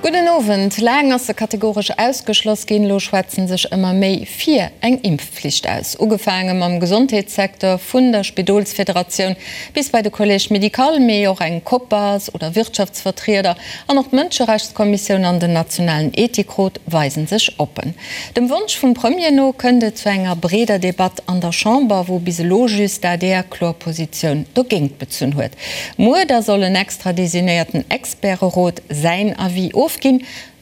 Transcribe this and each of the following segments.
Gudden Owend. Laang ass se kategoresch ausgeschloss ginn, elo schwätzen sech ëmmer méi fir eng Impfflicht aus. Ugefaange mam Gesondheetssecteur, vun der Spidolsfederatioun bis bei de Collège médical, mee och eng Copas oder Wirtschaftsvertrieder an och d'Mënscherechtskommissioun an den nationalen Ethikrot weisen sech oppen. Dem Wonsch vum Premier no kënnt et zu enger breeder Debatt an der Chamber, wou bis elo just d'ADR kloer Positioun dogéint bezunn huet. Muer da soll en extra designéierten Experterot säin Avis ofginn.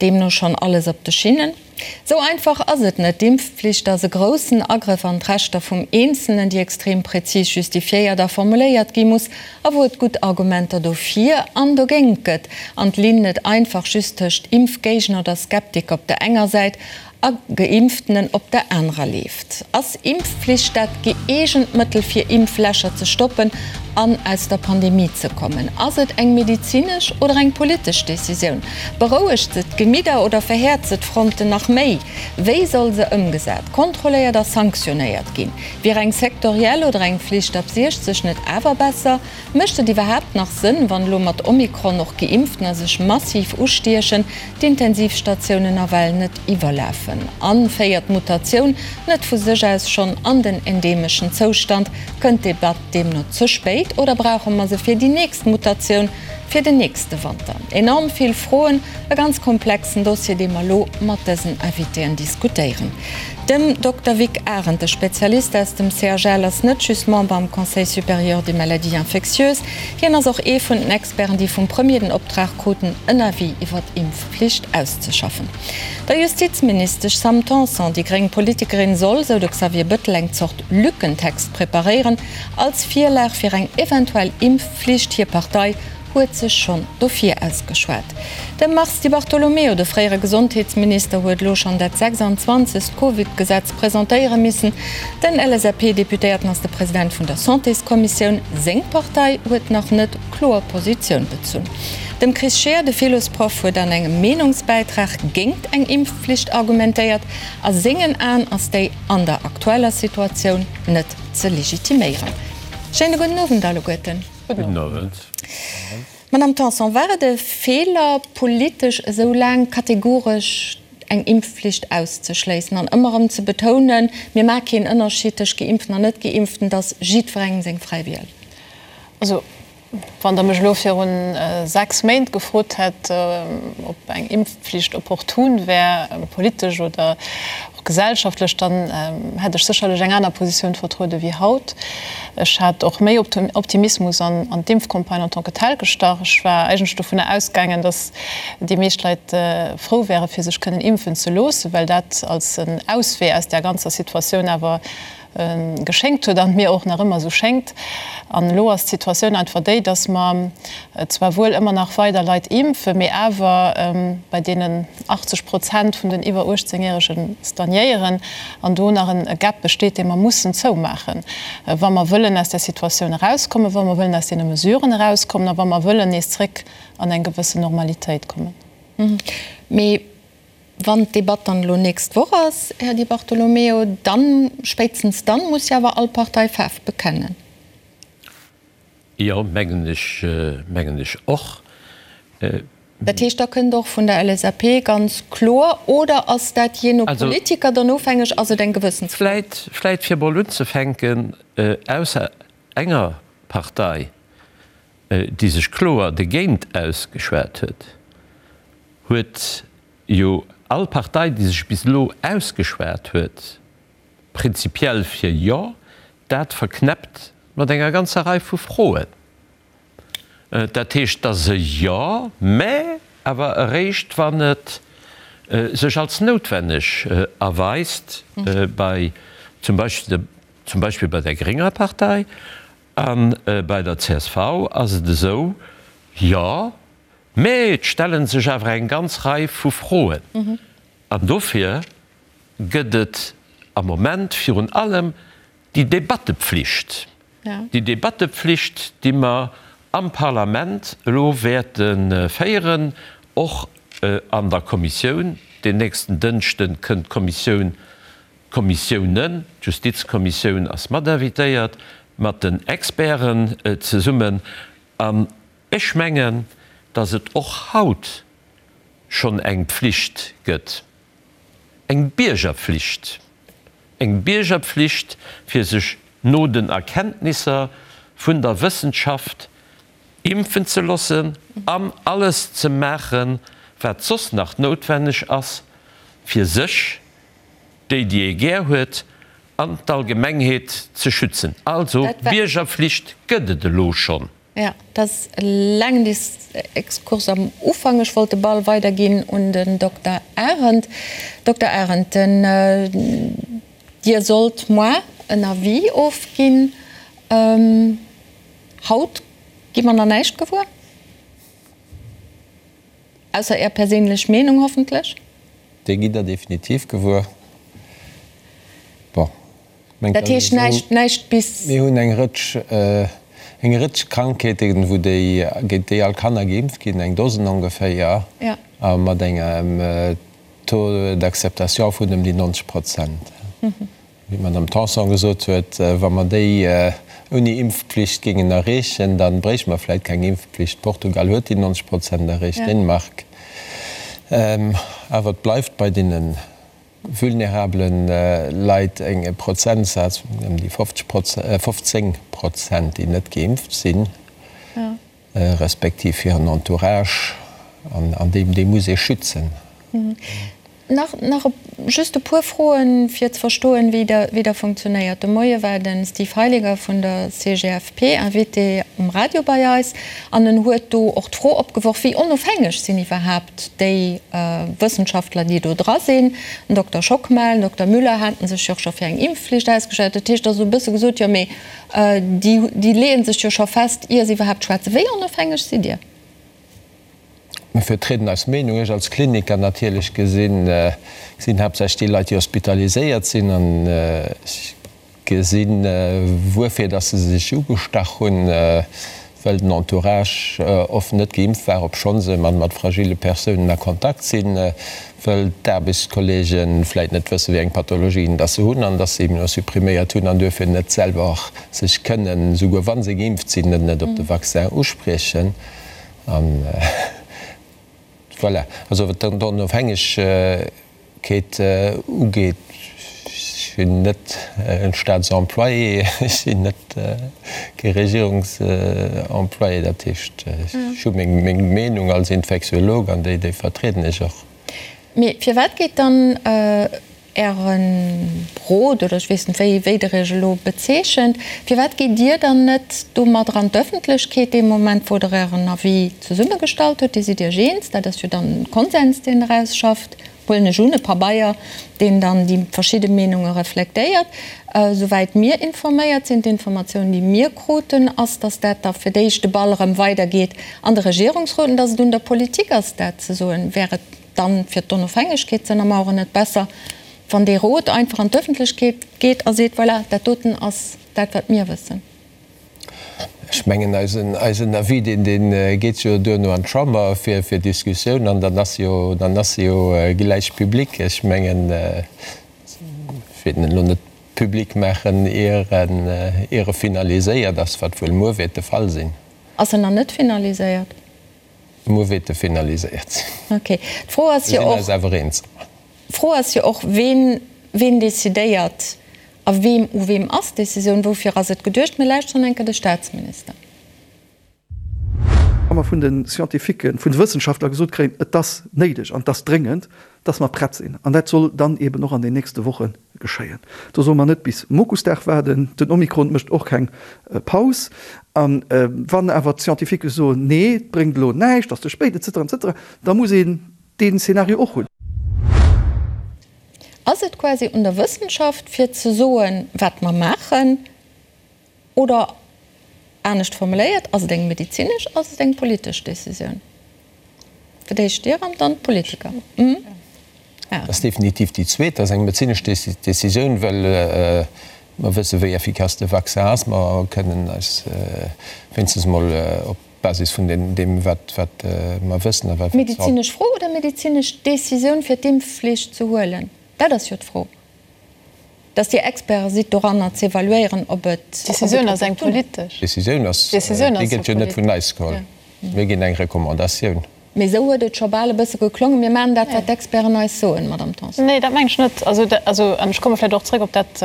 Deemno schonn alles op de Schinnen. Sou einfach ass et net. D'Impfpflicht ass e groussen Agrëff an d'Rechter vum Eenzelnen, déi extrem präzis justifiéiert a formuléiert gi muss a wou et gutt Argumenter dofir an dogéint gëtt an d'Linn net einfach just tëscht Impfgéigner oder Skeptiker op der enger Säit a Geimpftenen op der anerer leeft. Ass Impfpflicht dat gëeegent Mëttel fir Impflächer ze stoppen an aus der Pandemie ze kommen? Ass et eng medezinesch oder eng politesch Decisioun? Berouegt se d'Gemidder oder verhäert se d'Fronten nach méi? Wéi soll se ëmgesat, kontrolléiert a sanktionéiert ginn? Wier eng sektoriell oder eng Flicht ab 60 net awer besser? Mécht et iwwerhaapt nach Sënn, wann elo mat Omikron och Geimpftener sech massiv ustiechen, d'Intensivstatiounen nawell net iwwerlafen? An féiert d'Mutatioun net vu sech aus schonn an den endemeschen Zoustand? Kënnt d'Debatt deemno ze spéit oder brauche mer se fir déi nächst Mutatioun, fir den nächste Wanter? Enorm vill Froen, e ganz komplexen Dossier, dee mer elo mat dësen Invitéen diskutéieren. Dem Dokter Vic Arendt, de Spezialist aus dem CHL, ass net just Member am Conseil supérieur des maladies infectieuses, hien ass och ee vun den Experten, déi vum Premier den Optrag kruten, en Avis iwwer d'Impfflicht auszeschaffen. Der Justizministesch Sam Tanson, déi gréng Politikerin, soll, sou de Xavier Bëttel, eng Zort Lückentext preparéieren, als Virlag fir eng eventuell Impfflicht. Hir Partei huet sech schonn dofir ausgeschwat. De Mars Di Bartolomeo, de fréiere Gesondheetsminister, huet elo schonn dat 26. Covid-Gesetz presentéiere missen. Den LSAP-Deputéierten ass de President vun der Santéskommissioun. Seng Partei huet nach net kloer Positioun bezunn. Dem Chris Scheer, de Philosproff, huet an engem Meenungsbäitrag géingt eng Impfflicht argumentéiert. A sengen Aen ass déi an der aktueller Situatioun net ze legitiméieren. Schéine gudden Owend alleguerten. Gudden Owend. Madame Tanson, war et e Feeler, politesch esou laang kategoresch eng Impfflicht auszeschléissen an ëmmer erëm ze betounen, mir maache keen Ënnerschied tëscht Geimpften an Net-Geimpften, et ass jiddwerengem seng fräi Wiel? Also, wann Der mech elo viru 6 Méint gefrot hätt, ob eng Impfflicht opportun wär, politesch oder och gesellschaftlech, dann hätt ech sécherlech eng aner Positioun vertruede wéi haut. Ech hat och méi Optimismus an d'Impfcampagne en tant que telle gestach. Ech war eigentlech dovunner ausgaangen, datt déi meescht Leit frou wäre fir sech kënnen impfen ze loossen, well dat als en Auswee aus där ganzer Situatioun awer geschéngt huet an mir och nach ëmmer esou schéngt. An elo ass d'Situatioun einfach déi, dass mer zwar wuel ëmmer nach weider Leit impfen, mee awer bei deenen 80 Prozent vun den iwwer 18 Järege stagnéieren an do nach e Gap besteet, dee mer mussen zoumaachen, wa mer wëllen aus där Situatioun erauskommen, wa mer wëllen aus deene Mesuren erauskommen a wa mer wëllen nees zréck an eng gewëssen Normalitéit kommen. Mee Wann d'Debatt dann elo nächst Woch ass, Här Di Bartolomeo, dann, spéitstens dann, muss jo awer all Partei Faarf bekennen. Jo, mengen ech, mengen ech och. Dat heescht, da kënnt och vun der LSAP ganz kloer, oder ass dat jee no Politiker dann ofhängeg, ass et eng Gewëssensfro? Vläit, vläit fir emol unzefänken, ausser enger Partei, déi sech kloer dogéint ausgeschwat huet, huet jo all Partei, déi sech bis elo ausgeschwat huet, prinzipiell fir Jo, dat verknäppt mat enger ganzer Rei vu Froen. Dat heescht, et ass e Jo, mä awer eréischt, wann et sech als noutwenneg erweist, bei zum Beispill, zum Beispill bei der grénger Partei a bei der csv ass et esou, Jo, Mä et stelle sech awer eng ganz Rei vu Froen. An dofir gëtt et am Moment virun allem déi Debattepflicht, déi Debattepflicht, déi mer am Parlament elo wäerte féieren, och an der Kommissioun. Den nächsten Dënschde kënnt d'Kommissioun, d'Kommissiounen, d'Justizkommissioun ass mat invitéiert, mat den Experten zesummen. An Ech mengen, datt et och haut schonn eng Pflicht gëtt, eng Biergerpflicht, eng Biergerpflicht, fir sech no den Erkenntnisser vun der Wëssenschaft impfen ze loossen an alles ze maachen, wat soss nach noutwenneg ass, fir sech, déi, déi ee gär huet, an d'Allgemengheet ze schützen. Also, Biergerpflicht gëtt et elo schonn. Jo, dat ass e laangen Exkurs am Ufank. Ech wollt de Ball weiderginn un den Dokter Arendt. Dokter Arendt, den, Dir sollt moar en Avis ofginn. Haut gi mer nach näischt gewuer, ausser Är perséinlech Meenung hoffentlech. Déi gitt Der definitiv gewuer. Bon. Dat heescht näischt, näischt bis. Mir hunn eng Rëtsch, eng Rëtsch Krankheeten, wou déi, géint déi all Kanner geimpft ginn, eng Dosen ongeféier, a mat engem Taux d'acceptation vun ëm déi 90 Prozent. Wéi d'Madame Tanson gesot huet, wa mer déi ouni Impfpflicht géingen erreechen, da bréichte mer vläicht keng Impfpflicht. Portugal huet déi 90 Prozent erreecht, Dänemark. Awer et bleift bei deene vulnerabele Leit e Prozentsaz vun ëm déi 15 Prozent, déi net geimpft sinn, respektiv hiren Entourage, an dee muss ee schützen. Nach nach just e puer Froen, fir ze verstoen, wéi der wéi der funktionéiert. De Moie war de Steve Heiliger vun der CGFP Invité um Radio bei eis an en huet do och d'Fro opgeworf, wéi onofhängeg sinn iwwerhaapt déi Wëssenschaftler, déi do dra sinn. Den Dokter Schockmel, den Dokter Müller haten sech jo och scho fir eng Impfflicht ausgeschwat. Dat heescht, da ass esou e bësse gesot, jo mee déi déi leeë sech jo scho fest, ier se iwwerhaapt schwätzen. Wéi onofhängeg sidd Dir? Mir vertrieden eis Meenung. Ech als Kliniker natierlech gesinn, gesinn haaptsächlech déi Leit, déi hospitaliséiert sinn an ech gesinn, wuerfir dass se sech ugestach hunn, well den Entourage oft net geimpft war, obschonn se mat fragile Persounen a Kontakt sinn, well d'Aarbechtskollege vläit net wëssen, wéi eng Pathologien dass se hunn an dass se immunosuppriméiert hunn an duerfir net selwer sech kënnen, souguer wa se geimpft sinn, net op de Vaccin uspriechen. An voilà, also wat d'Onofhängegkeet ugeet, ech sinn net e Staatsemployé, ech sinn net kee Regierungsemployé, dat heescht, ech hu meng Meenung als Infektiolog an déi vertrieden ech och. Mee firwat geet dann Äre Rot, oder ech weess net, wéi wéi Der Iech elo bezeechent, firwat gitt Dir dann net domadder an d'Öffentlechkeet dee Moment, wou Der Ären Avis zesummegestallt hutt? Dir sidd Iech eens, dat ass jo dann e Konsens, deen Der ausschafft, huelen ech un, e Pabeier, deen dann déi verschidde Meenunge reflektéiert. Souwäit mir informéiert sinn, d'Informatioun, déi mir kruten, ass, dass dat da fir d'éischt de Ball erëm weidergeet an de Regierungsrot an dass et un der Politik ass, dat ze soen. Wär et dann fir d'Onofhängegkeet ze ënnermauern net besser, wann dee Rot einfach an d'Ëffentlechkeet geet a seet, voilà, dat doten ass dat, wat mir wëssen? Ech mengen, eisen, eisen Avis, deen, dee geet jo duerno an d'Chamber fir, fir Diskussioun an dann ass jo, dann ass e jo gläich public. Ech mengen, ech wéilt en elo net public maachen, ier en, ier e finaliséiert ass, wat wuel muer wäert de Fall sinn. Ass en nach net finaliséiert? Muer wäert e finaliséiert sinn. Ok. D'Fro ass jo och. Mir sinn eis awer eens. D'Fro ass jo och, ween, ween decidéiert a weem, u weem ass d'Decisioun? Woufir ass et geduecht? Mir lauschteren eng Kéier de Staatsminister. Wa mer vun de Scientifiquen, vun de Wëssenschaftler gesot kréien, et ass néideg an et ass dréngend, dass mer prett sinn, an dat soll dann eeben och an den nächste Woche geschéien. Do solle mer net bis Mokusdag waarden. Den Omikron mécht och keng Paus. A wann awer d'Scientifiquen soen, nee, et bréngt elo näischt, ass ze spéit, et cetera, et cetera, da muss een deen Szenario och hunn. Ass et quasi un der Wëssenschaft, fir ze soen, wat mer maachen? Oder anescht formuléiert, ass et eng medezinesch, ass et eng politesch Decisioun? Fir d'éischt Dir an dann d'Politiker. Dat ass definitiv déi zweet. Dat ass eng medezinesch Decisioun, well mer wësse wéi effikass de Vaccin ass. Mer kënnen eis wéinstens emol op Basis vun deem, wat mer wëssen a wat. Medezinesch Fro oder medezinesch Decisioun, fir d'Impfflicht ze huelen? Dat ass jo d'Fro. Dass Dir Experte sidd doranner z'evaluéieren, ob et. D'Decisioun ass eng politesch. D'Decisioun ass, déi gëtt jo net vun eis geholl. Mir ginn eng Recommandatioun. Mee esou huet et scho bal e bësse geklongen, mir maachen dat, wat d'Experten eis soen, Madamm Tanson. Nee, dat mengen ech net. Also, also, an ech komme vläicht och zréck op dat,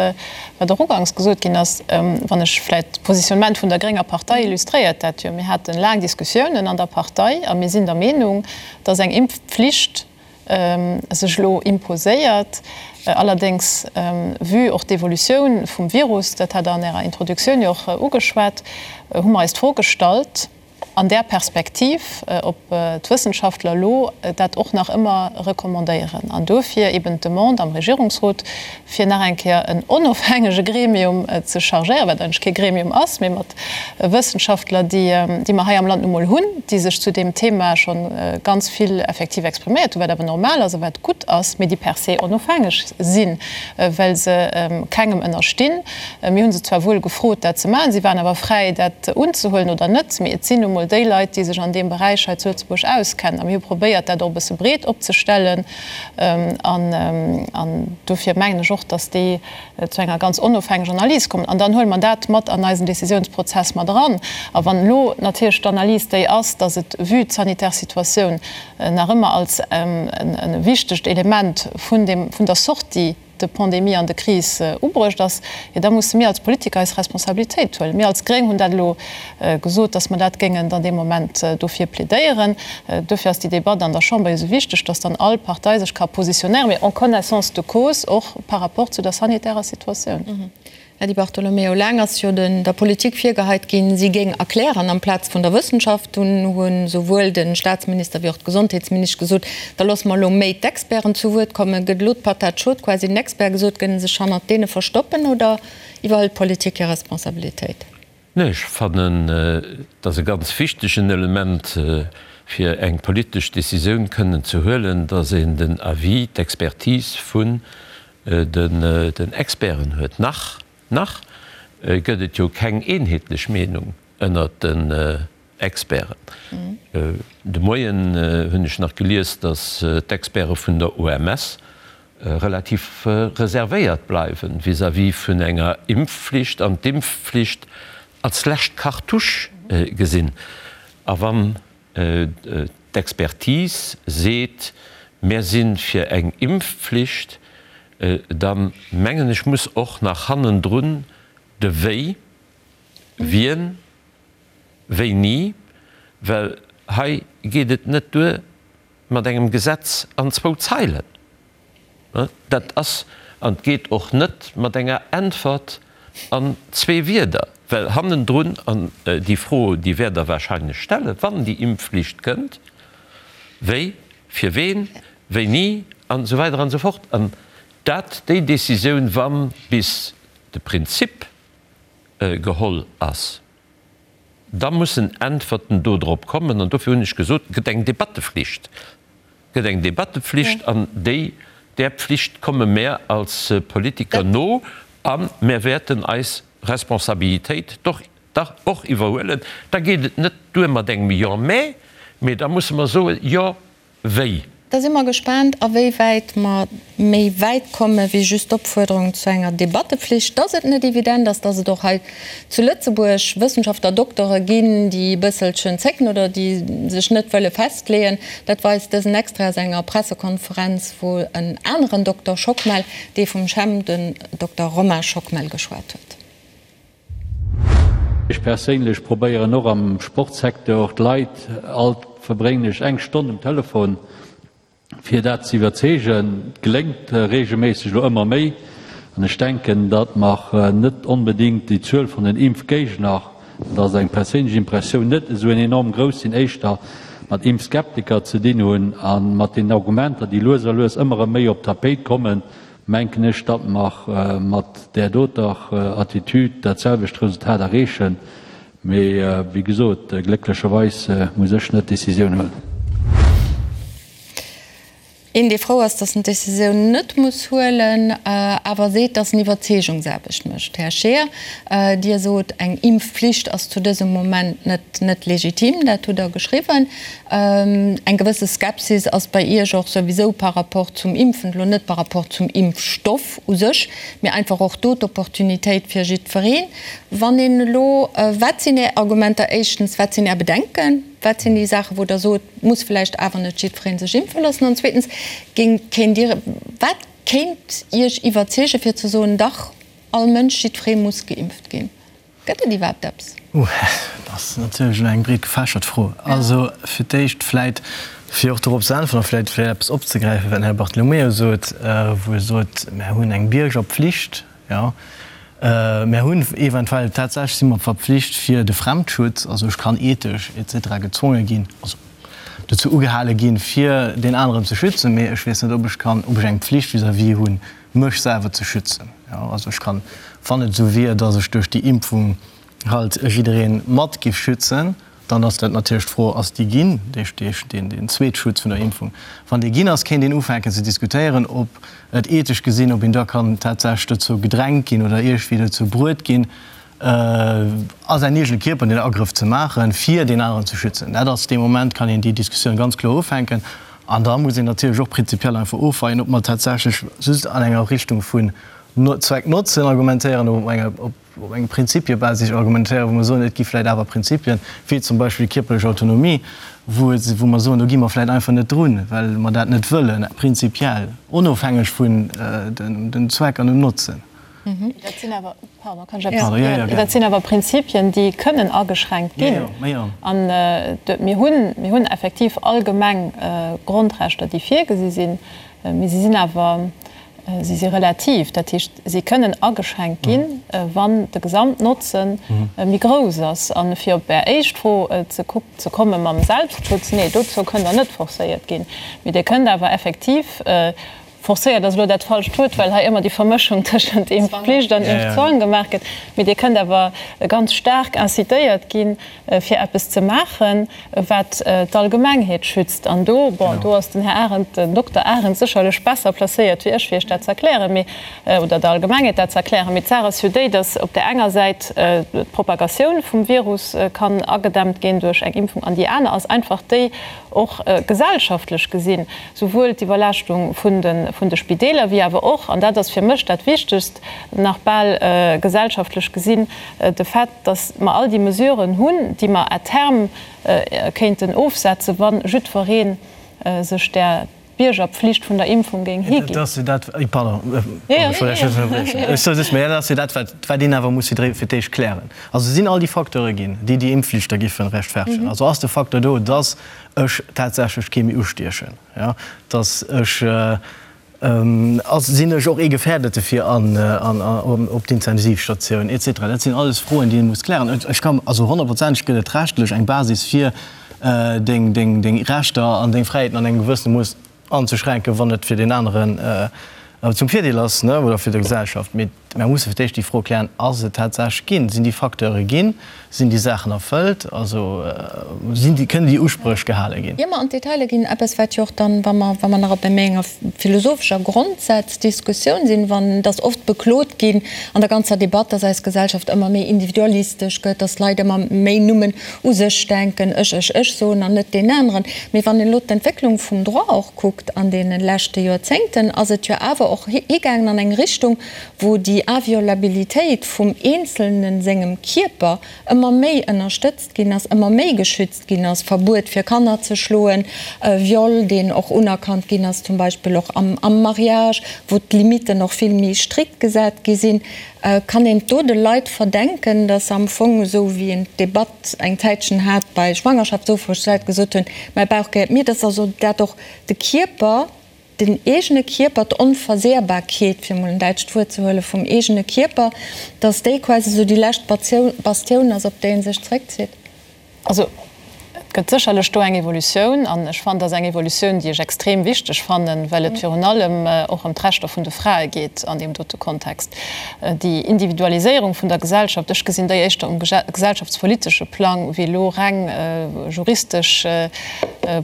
wat och uganks gesot ginn ass, wann ech vläicht d'Positionnement vun der grénger Partei illustréiert dat jo. Mir hate laang Diskussiounen an der Partei a mir sinn der Meenung, dass eng Impfpflicht sech elo imposéiert. Allerdéngs, vue och d'Evolutioun vum Virus, dat hat Der an Ärer Introduktioun jo och ugeschwat, hu mer eis d'Fro gestallt, an där Perspektiv, ob d'Wëssenschaftler elo dat och nach ëmmer recommandéieren. An dofir eben d'Demande am Regierungsrot, fir nach eng Kéier en onofhängege Gremium ze chargéieren, wat eigentlech kee Gremium ass, mee mat Wëssenschaftler, déi mer hei am Land nu mol hunn, déi sech zu deem Thema scho ganz vill effektiv expriméiert hunn, wat awer normal ass a wat gutt ass, mee déi per se onofhängeg sinn, well se kengem ënnerstinn. Mir hu se zwar wuel gefrot, dat ze maachen, si waren awer fräi, dat unzehuelen oder net, mee et sinn nu mol déi Leit, déi sech an deem Beräich hei zu Lëtzebuerg auskennen. A mir hu probéiert, dat och e bësse breet opzestellen. An dofir mengen ech och, dass déi zu enger ganz onofhängeger Analys kommen. An dann huele mer dat mat an eisen Décisiounsprozess mat eran. A wann elo natierlech d'Analys déi ass, dass et vue d'sanitär Situatioun nach ëmmer als e wichtegt Element vun dem, vun der Sortie de Pandemie an de Kris ubruecht ass, jo da musse mir als Politiker eis Responsabilitéit huelen. Mir als Gréng hunn dat elo gesot, datt mer dat géingen dann dee Moment dofir plädéieren. Dofir ass déi Debatt an der Chamber jo esou wichteg, datt dann all Partei sech ka positionéieren, mee en connaissance de cause och par rapport zu der sanitärer Situatioun. Här Di Bartolomeo, laang ass jo der Politik virgeheit ginn, si géing erklären amplaz vun der Wëssenschaft. Dunn hu souwuel de Staatsminister wéi och d'Gesondheetsministesch gesot, da loosse mer elo méi d'Experten zu Wuert kommen. Gëtt elo d'Patat chaude quasi den Experte gesot? Gëtt e sech hannert deene verstoppen oder iwwerhëlt d'Politik hir Responsabilitéit? Nee, ech fannen, et ass e ganz wichtegen Element, fir eng politesch Décisioun kënnen ze huelen, datt een den Avis, d'Expertise vun den Experten huet. Nach, nach gëtt et jo keng eenheetlech Meenung ënnert den Experten. De Moien hunn ech nach gelies, datt d'Experte vun der OMS relativ reservéiert bleiwen vis-à-vis vun enger Impfflicht an d'Impfflicht als lescht Cartouche gesinn. A wann d'Expertise seet, mär si fir eng Impfflicht, da mengen ech, muss och nach hannendrun de Wéi, wien, wéini, well hei geet et net duer mat engem Gesetz an zwou Zeilen. Dat ass, an et geet och net mat enger Äntwert an zwee Wierder, well hannendrun, an déi Fro, déi wäert Der wahrscheinlech stellen, wann déi Impfflicht kënnt, Wéi, fir ween, wéini an esou weider an esou fort. An dat, déi Décisioun, wa bis de Prinzip geholl ass, Da mussen Äntwerten dodrop kommen. An dofir hunn ech gesot, et gëtt eng Debatteflicht. Et gëtt eng Debatteflicht an déi, där Pflicht komme mär als Politiker no a mär wäerten eis Responsabilitéit doch dach och iwwerhuelen. Da geet et net duer mat engem Jo, mä, mee da musse mer soen, Jo, wéi. Da si mer gespaant, awéiwäit mer méi wäit komme wéi just d'Opfuerderung zu enger Debattepflicht. Dass et net evident ass, dass et och hei zu Lëtzebuerg Wëssenschaftler, Doktere ginn, déi e bësselchen zécken oder déi sech net wëlle festleeën, dat weist dësen Extrait aus enger Pressekonferenz, wou en aneren Dokter Schockmel, dee vum CHEM, den Dokter Romain Schockmel, geschwat huet. Ech perséinlech probéieren och am Sportsecteur d'Leit, alt verbréngen ech eng Stonn um Telefon, fir dat ze iwwerzeegen. Et geléngt reegelméisseg elo ëmmer méi an ech denken, datt mer net onbedéngt déi Zuel vun den Impfgéigner, dat ass eng perséinlech Impressioun, net esou en enorm grouss sinn, éischter mat Impfskeptiker ze dinn hunn a mat den Argumenter, déi lues a lues ëmmer erëm méi op d'Tapéit kommen, menken ech, datt mer mat där doter Attitüd dat selwecht Resultat erreechen. Mee wéi gesot, glécklecherweis muss ech net d'Décisioun huelen. Een, dee frou ass, datt en d'Décisioun net muss huelen, awer seet, datt en Iwwerzeegungsaarbecht mécht. Här Scheer, Dir sot, eng Impfflicht ass zu dësem Moment net net legitim. Dat hutt Der geschriwwen. Eng gewësse Skepsis ass bei Iech och souwisou par rapport zum Impfen, elo net par rapport zum Impfstoff u sech, mee einfach och do d'Opportunitéit fir jiddwereen. Wann een elo, wat sinn Är Argumenter éischtens, wat sinn Är Bedenken? Wat sinn déi Saachen, wou Der sot, muss vläicht awer net jiddweree sech impfe loossen? An zweetens, géing, kéint Dir, wat kéint Iech iwwerzeegen, fir ze soen, dach, all Mënsch, jiddweree muss geimpft ginn? Gëtt et iwwerhaapt eppes? Ouh, dat ass natierlech elo eng breet gefächert Fro. Also fir d'éischt vläit, fir och dorop ze äntweren a vläit vläit eppes opzegräifen, wat den Här Bartolomeo sot, wou e sot, mär hunn eng Biergerpflicht, jo. Mär hunn eventuell, tatsächlech si mer verpflicht fir de Fremdschutz, also ech kann ethesch et cetera gezwonge ginn, also dozou ugehale ginn, fir deen aneren ze schützen, mee ech weess net, ob ech kann, ob ech eng Pflicht vis-à-vis hunn, mech selwer ze schützen. Jo, also ech kann, wann et esou wier, dass ech duerch déi Impfung halt jidderee mat giff schützen, dann ass dat natierlech d'Fro, ass déi ginn, deen Zweetschutz vun der Impfung, wann dee ginn ass, kéint een ufänken ze diskutéieren, ob et ethesch gesinn, ob een da kann tatsächlech dozou gedrängt ginn oder iergendwéi dozou bruet ginn, a säin eegene Kierper den Agrëff ze maachen, fir deen aneren ze schützen. Dat ass dee Moment, kann een déi Diskussioun ganz kloer ufänken. An da muss een natierlech och prinzipiell einfach ofweien, ob mer tatsächlech just an enger Richtung vun Zweck-Notzen argumentéieren oder ob mer op enger Prinzipiebasis argumentéieren, wou mer soen, et gi vläicht awer Prinzipien, wéi zum Beispill déi kierperlech Autonomie, wou et, wou mer soen, do gi mer vläicht einfach net drun, well mer dat net wëllen, prinzipiell, onofhängeg vun dem Zweck an dem Notzen. Dat sinn awer, pardon, kann ech eppes, dat sinn awer Prinzipien, déi kënnen ageschränkt ginn. An mir hunn, mir hunn effektiv allgemeng Grondrechter, déi virgesi sinn, mee si sinn awer, si si relativ. Dat heescht, si kënnen ageschränkt ginn, wann de Gesamtnotze méi grouss ass. A fir op Är éischt Fro ze komme mam Selbstschutz, Nee, dozou kënnt Der net forcéiert ginn. Mee Dir kënnt awer effektiv Forcéiert ass elo dat falscht Wuert, well hei ëmmer déi Vermëschung tëschent Impfpflicht an Impfzwang gemaach gëtt. Mee Dir kënnt awer ganz staark incitéiert ginn, fir eppes ze maachen, wat d'Allgemengheet schützt. An do, bon, do ass den Här Arendt, den Dokter Arendt sécherlech besser placéiert wéi ech, fir Iech dat ze erklären, mee, oder der Allgemengheet dat ze erklären. Mee d'Saach ass jo déi, datt op där enger Säit d'Propagatioun vum Virus kann agedämmt ginn duerch eng Impfung an déi aner ass einfach déi, och gesellschaftlech gesinn, souwuel d'Iwwerlaaschtung vun de Spideeler wéi awer och, an dat ass fir mech dat Wichtegst nach bal gesellschaftlech gesinn, de Fait, dass mer all déi Mesuren hunn, déi mer à terme kéinten ofsetzen, wa jiddweree sech där Biergerpflicht vun der Impfung géing higinn. Dat ass jo dat, pardon, ech wollt Iech net ënnerbriechen, ech soe just, mä dat ass jo dat, wat een awer muss fir d'éischt klären. Also sinn all déi Facteure ginn, déi déi Impfflicht da giffen rechtfertegen? Also ass de Facteur do, dass ech tatsächlech kee méi ustiechen, jo, dass ech, ass, sinn ech och ee Gefährdete fir an, an, op d'Intensivstatioun et cetera? Dat sinn alles Froen, déi ee muss klären. Ech kann, also honnertprozenteg gëtt et rechtlech eng Basis fir deng, deng, deng Rechter an deng Fräiheeten an engem gewëssene Mooss anzeschränken, wann et fir deen aneren zum Virdeel ass, ne, oder fir d'Gesellschaft. Mee Mer musse fir d'éischt déi Fro klären, Ass et tatsächlech ginn? Sinn déi Facteure ginn? Sinn déi Saachen erfëllt? Also sinn déi, kënnen déi Uspréch gehale ginn? Ier mer an d'Detailer ginn, eppes wat jo och dann, wa mer, wa mer nach op méi enger philosophescher Grondsaazdiskussioun sinn, wann et ass oft beklot ginn an der ganzer Debatt, dass eis Gesellschaft ëmmer méi individualistesch gëtt, dass d'Leit ëmmer méi nummen u sech denken, ech, ech, ech soen an net deen aneren. Mee wann een elo d'Entwécklung vum Droit och kuckt an deene leschte Joerzéngten, ass et jo awer och higaangen an eng Richtung, wou déi Inviolabilitéit vum Eenzelne sengem Kierper ëmmer méi ënnerstëtzt ginn ass, ëmmer méi geschützt ginn ass, Verbuet fir Kanner ze schloen, Viol, deen och unerkannt ginn ass, zum Beispill och am Mariage, wou d'Limitten och vill méi strikt gesat gi sinn. Kann een do de Leit verdenken, datt se am Fong, esou wéi een d'Debatt eng Zäitchen hat bei Schwangerschaftsofbréch, d'Leit gesot hunn, mäi Bauch gehéiert mir, datt also dat och de Kierper, den eegene Kierper, d'Onversehrbarkeet, fir emol en däitscht Wuert ze huelen, vum eegene Kierper, datt déi quasi esou déi lescht Bastioun ass, op déi ee sech zréckzitt? Also, et gëtt sécherlech do eng Evolutioun, an ech fannen, dat ass eng Evolutioun, déi ech extrem wichteg fannen, well et virun allem och ëm d'Rechter vun de Frae geet an deem dote Kontext. Déi Individualiséierung vun der Gesellschaft, ech gesinn déi éischter um gesellschaftspolitesche Plang wéi elo reng juristesch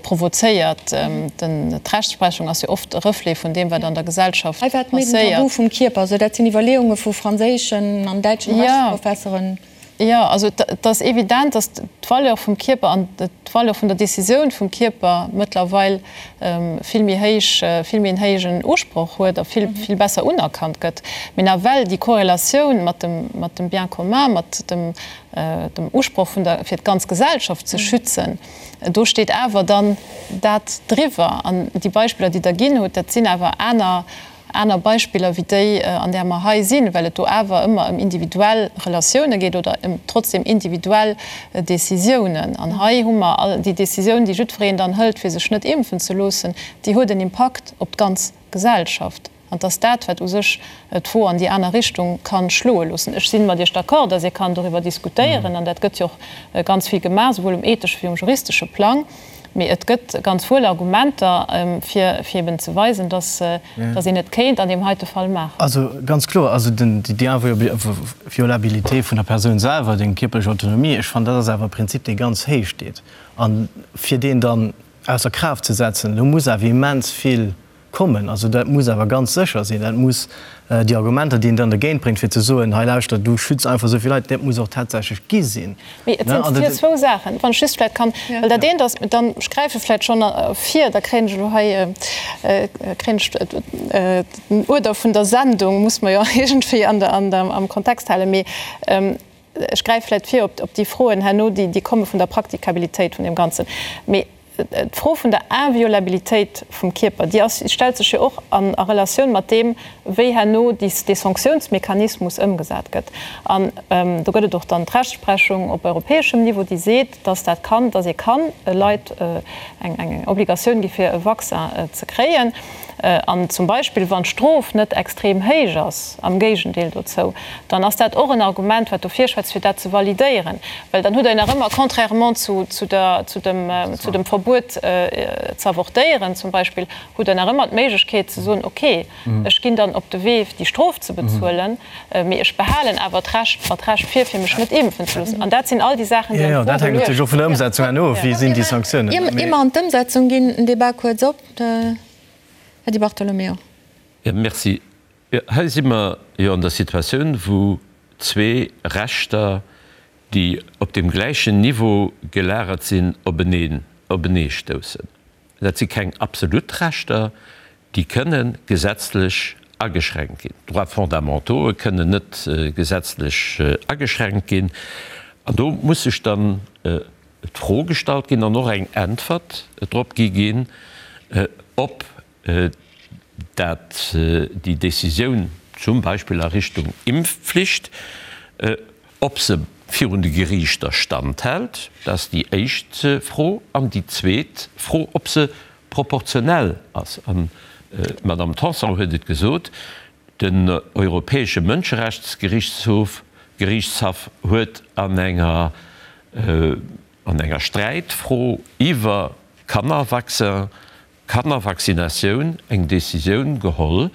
provozéiert. D'Rechtsprechung ass jo oft e Reflet vun deem, wat an der Gesellschaft passéiert. Hei war et méi den Tabu vum Kierper, also dat sinn Iwwerleeunge vu franséischen an däitschen Rechtsprofesseren. Jo, also et ass evident, datt d'Valeur vum Kierper an d'Valeur vun der Decisioun vum Kierper mëttlerweil vill méi héich, vill méi en héijen Usproch huet a vill, vill besser unerkannt gëtt. Mee nawell déi Korrelatioun mat dem, mat dem Bien commun, mat dem, dem Usproch vun der, fir d'ganz Gesellschaft ze schützen, do steet awer dann dat driwwer. An déi Beispiller, déi Der ginn hutt, dat sinn awer aner, aner Beispiller wéi déi, an där mer hei sinn, well et do awer ëmmer ëm individuell Relatioune geet oder ëm trotzdem individuell Décisiounen. An hei hu mer all déi Décisioun, déi jiddwereen dann hëlt, fir sech net impfen ze loossen, déi huet en Impakt op d'ganz Gesellschaft. An et ass dat, wat u sech d'Fro an déi aner Richtung ka schloe loossen. Ech si mat Iech d'accord, datt ee kann doriwwer diskutéieren, an dat gëtt jo och ganz vill gemaach, souwuel um ethesche wéi um juristesche Plang. Mee et gëtt ganz wuel Argumenter, fir eben ze weisen, dass een et kéint an deem heite Fall maachen. Also ganz kloer, also déi Inviolabilité vun der Persoun selwer, déi kierperlech Autonomie, ech fannen, dat ass awer e Prinzip, dee ganz héich steet. A fir deen dann ausser Kraaft ze setzen, do muss awer immens vill kommen. Also dat muss awer ganz sécher sinn. Dat muss déi Argumenter, déi een dann dergéint bréngt, fir ze soen, hei lauschtert, du schütz einfach esou vill Leit, dat muss och tatsächlech gi sinn. Mee et sinn hier zwou Saachen, wann ech just vläicht kann, well dat eent ass, dann, ech gräife vläicht schonn vir, da kréien ech elo hei, kréien ech den Uerder vun der Sendung, muss mer jo iergendwéi an der, an der, am Kontext halen. Mee ech gräife vläicht vir op, op déi Froen herno, déi, déi komme vun der Praktikabilitéit vun deem Ganzen. Mee D'Fro vun der Inviolabilitéit vum Kierper, déi ass, stellt sech jo och an a Relatioun mat deem, wéi herno déi, dee Sanktiounsmechanismus ëmgesat gëtt. An do gëtt et och dann d'Rechtsprechung op europäeschem Niveau, déi seet, dass dat kann, dass ee kann Leit eng, eng Obligatioun gi fir e Vaccin ze kréien. An zum Beispill, wann d'Strof net extrem héich ass, am Géigendeel dozou, dann ass dat och en Argument, wat dofir schwätzt, fir dat ze validéieren. Well dann hutt Der jo nach ëmmer, contrairement zu, zu der, zu dem, zu dem Verbuet ze avortéieren zum Beispill, hutt Der nach ëmmer d'Méiglechkeet ze soen, okay, ech ginn dann op de Wee, déi Strof ze bezuelen, mee ech behalen awer d'Recht, mer d'Recht vir, fir mech net impfen ze loossen. An dat sinn all déi Saachen, déi an Fro geluecht ginn. Jo, dat hänkt natierlech och vun der Ëmsetzung herno of, wéi sinn déi Sanktiounen. Ier mer an d'Ëmsetzung ginn, den Débat kuerz op. Här Di Bartolomeo. Jo, merci. Hei si mer jo an der Situatioun, wou zwee Rechter, déi op deem gläichen Niveau gelagert sinn, openeen, openeestoussen. Dat si keng absolut Rechter, déi kënne gesetzlech ageschränkt ginn. D'Droits fondamentauxë kënnen net gesetzlech ageschränkt ginn. An do muss sech dann d'Fro gestallt ginn an och eng Äntwert drop gi ginn, ob dat déi Décisioun zum Beispill a Richtung Impfpflicht, ob se virun de Geriichter standhält, dat ass déi éischt Fro, an déi zweet Fro, ob se proportionell ass. An d'Madame Tanson huet et gesot, Den Europäesche Mënscherechtsgerichtshof Geriichtshaff huet an enger an enger Sträitfro iwwer Kannervaccin, Kannervaccinatioun eng Decisioun geholl,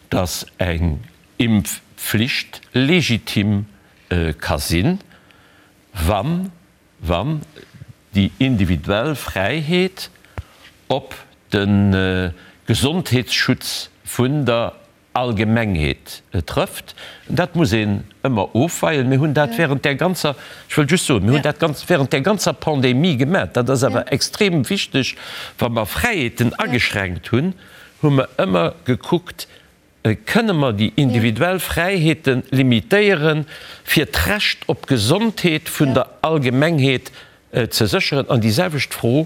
datt eng Impfflicht legitim ka sinn, wann wann déi individuell Fräiheet op de Gesondheetsschutz vun der Allgemengheet trëfft. Dat muss een ëmmer ofweien. Mir hunn dat während där ganzer, ech wëll just soen, mir hunn dat ganz während där ganzer Pandemie gemaach. Dat ass awer extrem wichteg. Wa mer Fräiheeten ageschränkt hunn, hu mer ëmmer gekuckt, Kënne mer déi individuell Fräiheete limitéieren, fir d'Recht op Gesondheet vun der Allgemengheet ze sécheren? An déi selwecht Fro,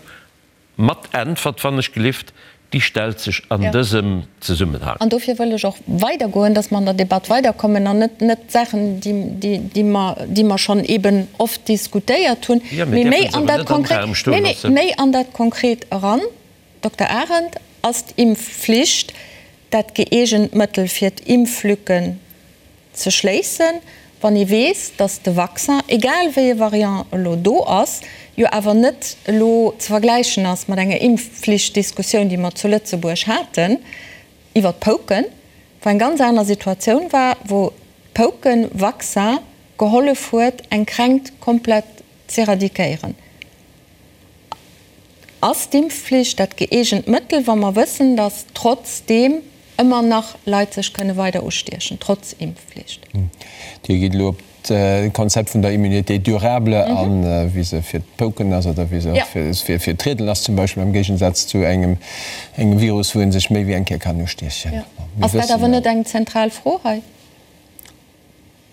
mat Äntwert, wann ech gelift, déi stellt sech an dësem Zesummenhang. An dofir wëll ech och weidergoen, dass mer an der Debatt weiderkommen an net net Saachen, déi mer, déi mer schonn eeben oft diskutéiert hunn, mee méi an dat Konkret, nee, nee, méi an dat Konkret eran. Dokter Arendt, Ass d'Impfflicht dat gëeegent Mëttel fir d'Impflücken ze schléissen, wann ee weess, datt de Vaccin, egal wéi e Variant elo do ass, jo awer net elo ze vergläichen ass mat enger Impfpflichtdiskussioun, déi mer zu Lëtzebuerg haten iwwer d'Pouken, wou eng ganz aner Situatioun war, wou d'Pouken-Vaccin gehollef huet, eng Kränkt komplett z'éradiquéieren? Ass d'Impfflicht dat gëeegent Mëttel, wa mer wëssen, datt trotzdeem ëmmer nach Leit sech kënne weider ustiechen, trotz Impfflicht? Dir gitt elo op. d'Konzept vun der Immunité durable an, wéi se fir d'Pouken ass oder wéi se och fir d'Riedelen ass zum Beispill, am Géigensaz zu engem Virus, wou ee sech méi wéi eng Kéier kann ustiechen. Ass dat awer net eng zentral Fro hei?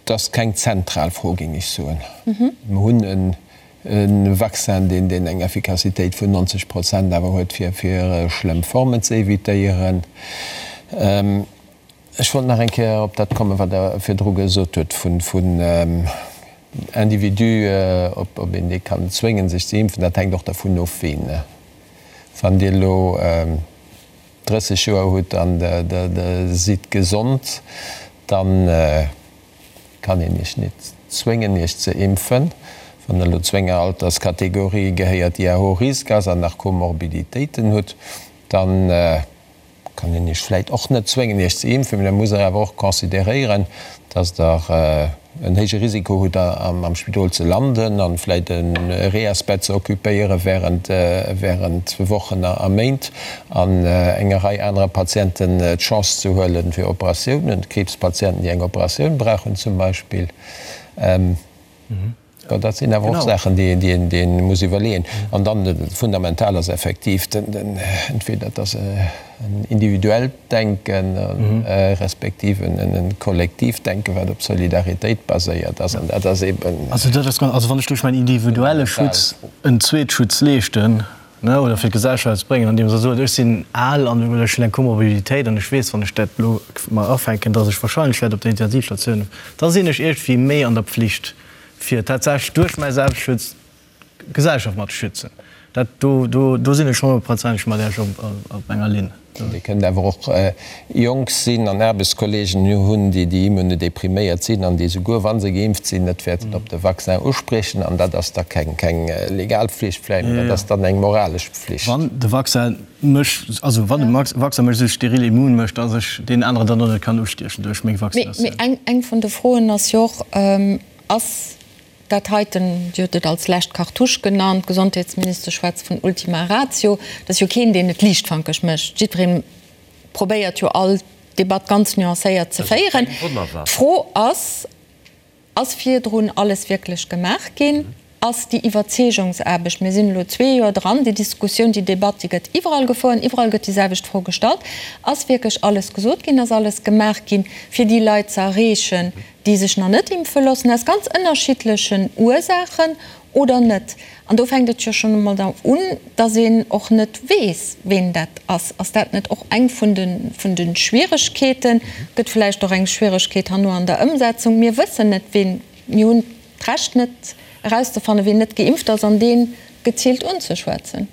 Et ass keng zentral Fro, géing ech soen. Mer hunn e Vaccin, deen eng Effikassitéit vun 90 Prozent awer huet, fir schlëmm Formen ze evitéieren. Ech wollt nach eng Kéier op dat kommen, wat Der virdru gesot hutt vun Individu, ob een dee kann zwéngen, sech ze impfen. Dat hänkt och dervun of, ween. Wann Dir elo 30 Joer hutt an Der sidd gesond, da kann een Iech net zwéngen, Iech ze impfen. Wann Der elo zu enger Alterskategorie gehéiert, déi à haut risque ass an nach Komorbiditéiten hutt, da kann een Iech vläit och net zwéngen, Iech ze impfen, mee da musst Der awer och consideréieren, dass Der en héije Risiko hutt, am Spidol ze landen an vläit e Reasbett ze occupéiere während Wochen a Méint an enger Rei anerer Patienten d'Chance ze huelen fir Operatiounen, Kriibspatienten, déi eng Operatioun brauchen zum Beispill. Jo, dat sinn awer och Saachen, déi ee muss iwwerleeën. An dann, fundamental ass effektiv entweder et ass en individuellt Denken, respektiv e kollektiivt Denken, wat op Solidaritéit baséiert ass. An dat ass eeben. Also dat ass, also wann ech duerch mäin individuelle Schutz en Zweetschutz leeschten, ne, oder fir d'Gesellschaft ze bréngen, andeems Der sot, ech sinn al an oder ech hunn eng Komorbiditéit an ech weess, wann ech dat elo mer afänken, dass ech wahrscheinlech wäert op der Intensivstatioun, da sinn ech iergendwéi méi an der Pflicht, fir tatsächlech duerch mäi Selbstschutz d'Gesellschaft mat ze schützen. Dat do, do, do sinn ech honnertprozenteg mat Iech op, op enger Linn. Dir kënnt awer och jonk sinn an Aarbechtskolleegen hunn, déi déi immunodepriméiert sinn an déi souguer wa se geimpft sinn, net wäerten op de Vaccin uspriechen. An dat ass da keng, keng legal Pflicht vläicht, mä dat ass dann eng moralesch Pflicht. Wann de Vaccin mech, also wann de Vaccin mech esou steril immun mécht, dass ech deen aneren dann och net kann ustiechen duerch meng Vaccinatioun. Mee eng, eng vun de Froen ass jo och, Ass dat heiten, Dir hutt et als lescht Cartouche genannt, d'Gesondheetsministesch schwätzt vun Ultima Ratio, et ass jo keen, deen et liichtfankeg mécht, jiddweree probéiert jo all Debatt ganz nuancéiert ze féieren. D'Fro ass, Ass virdrun alles wierklech gemaach ginn? Ass déi Iwwerzeegungsaarbecht, mir sinn elo zwee Joer dran, déi Diskussioun, déi Debatt, déi gëtt iwwerall gefouert, iwwerall gëtt déi selwecht Fro gestallt, ass wierklech alles gesot ginn, ass alles gemaach ginn, fir déi Leit ze erreechen, déi sech nach net impfe loossen, aus ganz ënnerschiddlechen Ursaachen oder net? An do fänkt et jo schonn emol da un, dass een och net weess, ween dat ass. Ass dat net och eng vun de, vun de Schwieregkeeten? Gëtt vläicht och eng Schwieregkeet herno an der Ëmsetzung. Mir wëssen net, ween, mir hunn d'Recht net erauszefannen, ween net geimpft ass an dee geziilt unzeschwätzen.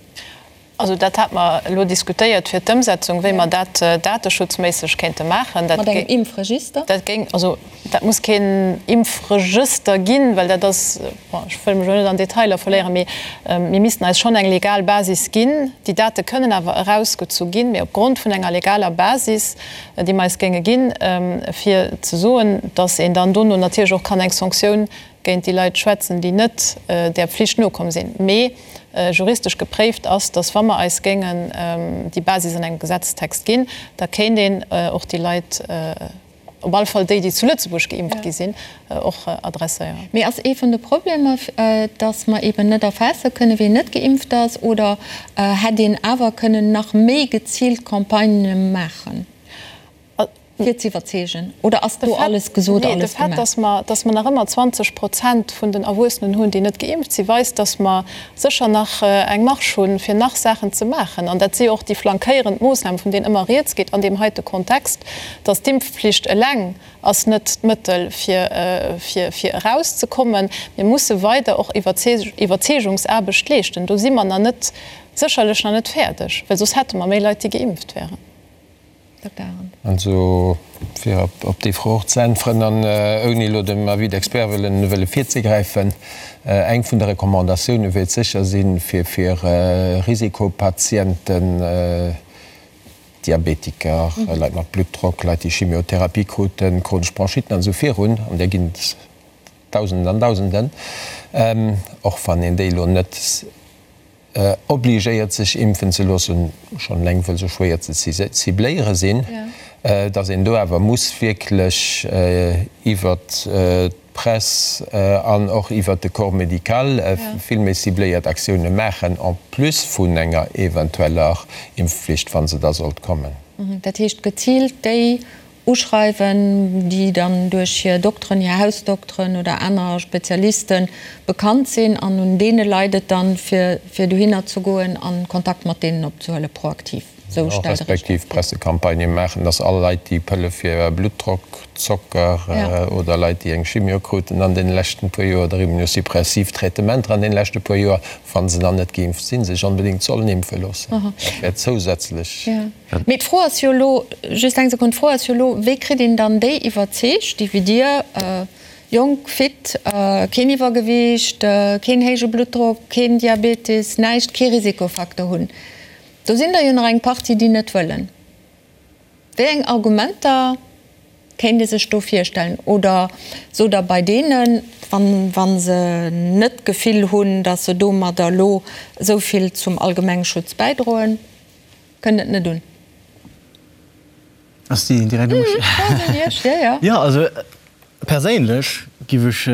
Also dat hate mer elo diskutéiert fir d'Ëmsetzung, wéi mer dat dateschutzméisseg kéinte maachen. Mat engem Impfregister? Dat géing, also dat muss keen Impfregëster ginn, well dat ass, bon, ech wëll mech elo net an Detailer verléieren, mee mir missten eis schonn eng legal Basis ginn. Déi Date kënnen awer erausgezu ginn, mee opgrond vun enger legaler Basis, déi mer eis géinge ginn, fir ze soen, datt een dann dono natierlech och kann eng Sanktioun géint déi Leit schwätzen, déi net där Pflicht nokomm sinn. Mee juristesch gepréift ass, datt wa mer eis géingen déi Basis an engem Gesetzestext ginn, da kéint een och déi Leit, op alle Fall déi, déi zu Lëtzebuerg geimpft gi sinn, och adresséieren. Mee ass ee vun de Problemer, datt mer eeben net erfaasse kënnen, wien net geimpft ass? Oder hätt een awer kënnen nach méi geziilt Campagnë maachen? Fir ze iwwerzeegen? Oder ass do alles gesot, alles gemaach? De Fait, dass mer nach ëmmer 20 Prozent vun den Erwuessenen hunn, déi net geimpft sinn, weist, dass mer sécher nach eng Marge hunn, fir nach Saachen ze maachen. An dat si jo och déi flankéierend Moossnamen, vun deenen ëmmer rieds geet an deem heite Kontext, dass d'Impfpflicht eleng ass net d'Mëttel, fir, fir erauszekommen. Mir musse weider och Iwwerzeegungsaarbecht leeschten. Do si mer nach net, sécherlech nach net fäerdeg, well soss hätte mer méi Leit, déi geimpft wären. Also, fir op déi Fro och ze äntweren, an ouni elo dem Avis d'experts wëllen wëlle virzegräifen, Eng vun de Recommandatioune wäert sécher sinn, fir fir Risikopatienten, Diabetiker, Leit mat Bluttdrock, Leit, déi Chimiotherapie kruten, chronesch Bronchitten an esou virun, an där ginn et Dausenden an Dausenden, och wann een déi elo net obligéiert sech impfen ze loossen, schonn eleng wëll se schwéier ze cibléiere sinn, datt een do awer muss wierklech iwwert. d'Press an och iwwert de Corps médical vill méi cibléiert Aktioune maachen, en plus vun enger eventueller Impfflicht, wa se da sollt kommen. Dat heescht geziilt déi uschreiwen, déi dann duerch hir Dokteren, hir Hausdokteren oder aner Spezialiste bekannt sinn, an un deene leit et dann, fir dohinner ze goen a Kontakt mat deenen opzehuelen, proaktiv. Esou stellt Der Iech dat vir? Respektiv Pressecampagnë maachen, dass all Leit, déi Pëlle fir Bluttdrock, Zocker oder Leit, déi eng Chimio kruten an deene leschten puer Joer oder immunosuppressiv Traitementer an deene leschte puer Joer, wa se dann net geimpft sinn, sech onbedéngt sollen impfe loossen. Dat wär zousätzlech. Mee d'Fro ass jo elo, just eng Sekonn, d'Fro ass jo elo, wéi kritt een dann déi iwwerzeegt, déi wéi Dir, jonk, fit, keen Iwwergewiicht, keen héije Bluttdrock, keen Diabetes, näischt, kee Risikofacteur hunn. Do sinn der jo nach eng Partie, déi net wëllen. Wéi eng Argumenter kéint ee sech do virstellen? Oder sot Der bei deenen, wa se net d'Gefill hunn, datt se domadder elo esou vill zum Allgemengschutz bäidroen, Kënnt et net un. Ass déi direkt u mech? D'Fro ass un Iech, jo, jo. Jo, also perséinlech giff ech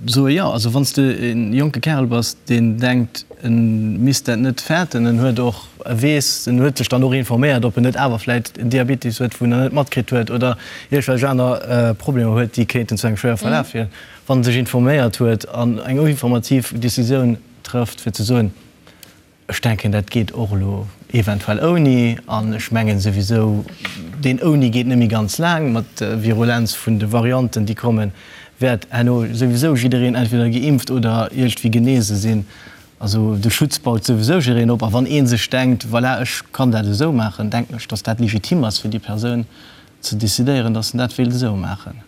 soe jo. Also wann s de e jonke Kärel bass, deen denkt, e misst dat net fäerten, en huet och, e weess, en huet sech dann och informéiert, ob en net awer vläit en Diabetes huet, wou en nach net matkritt huet, oder iergendwelch aner Problemer huet, déi kéinten zu engem schwéiere Verlaf féieren, wann en sech informéiert huet an eng informativ Decisioun trëfft, fir ze soen, Ech denken, dat geet och elo eventuell ouni. An ech mengen souwisou, deen ouni geet net méi ganz laang. Mat der Virulenz vun de Varianten, déi kommen, wäert herno souwisou jiddereen entweder geimpft oder iergendwéi genese sinn. Also de Schutz baut souwisou jiddereen op. A wann ee sech denkt, voilà, ech kann dat esou maachen, denken ech, datt dat legitim ass fir déi Persoun ze decidéieren, datt en dat wéilt esou maachen.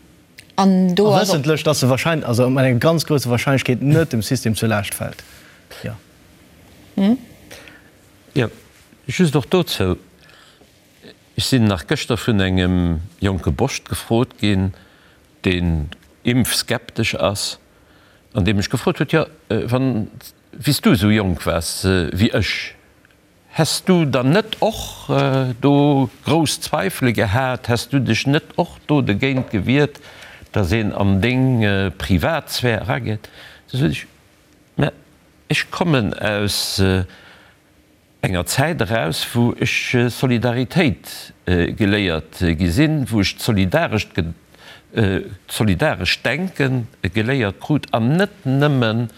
An do ass och. A wëssentlech, datt se wahrscheinlech, also mat enger ganz grousser Wahrscheinlechkeet net dem System zur Laascht fält. Jo. Jo, just och dozou, Ech sinn nach gëschter vun engem jonke Boscht gefrot ginn, deen impfskeptesch ass, an dee mech gefrot huet, Jo, wann, wéi s du esou jonk waars wéi ech, häss du dann net och do grouss Zweifele gehat, häss du dech net och do dogéint gewiert, datt een an deng Privatsphär erageet? Du sot ech, Mä ech kommen aus enger Zäit eraus, wou ech Solidaritéit geléiert gi sinn, wou ech d'solidarescht d'solidarescht Denke geléiert krut an net nëmmen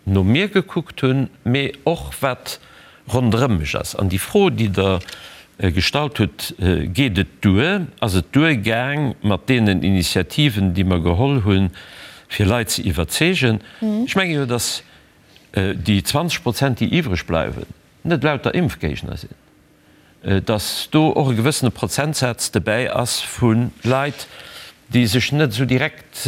no mir gekuckt hunn, mee och wat ronderëm mech ass. An déi Fro, déi Der gestallt hutt, Geet et duer, ass et duergaang mat deenen Initiativen, déi mer geholl hunn, fir Leit ze iwwerzeegen? Ech menge jo, datt déi 20 Prozent, déi iwwreg bleiwen, net lauter Impfgéigner sinn, datt do och e gewëssene Prozentsaz dobäi ass vu Leit, déi sech net esou direkt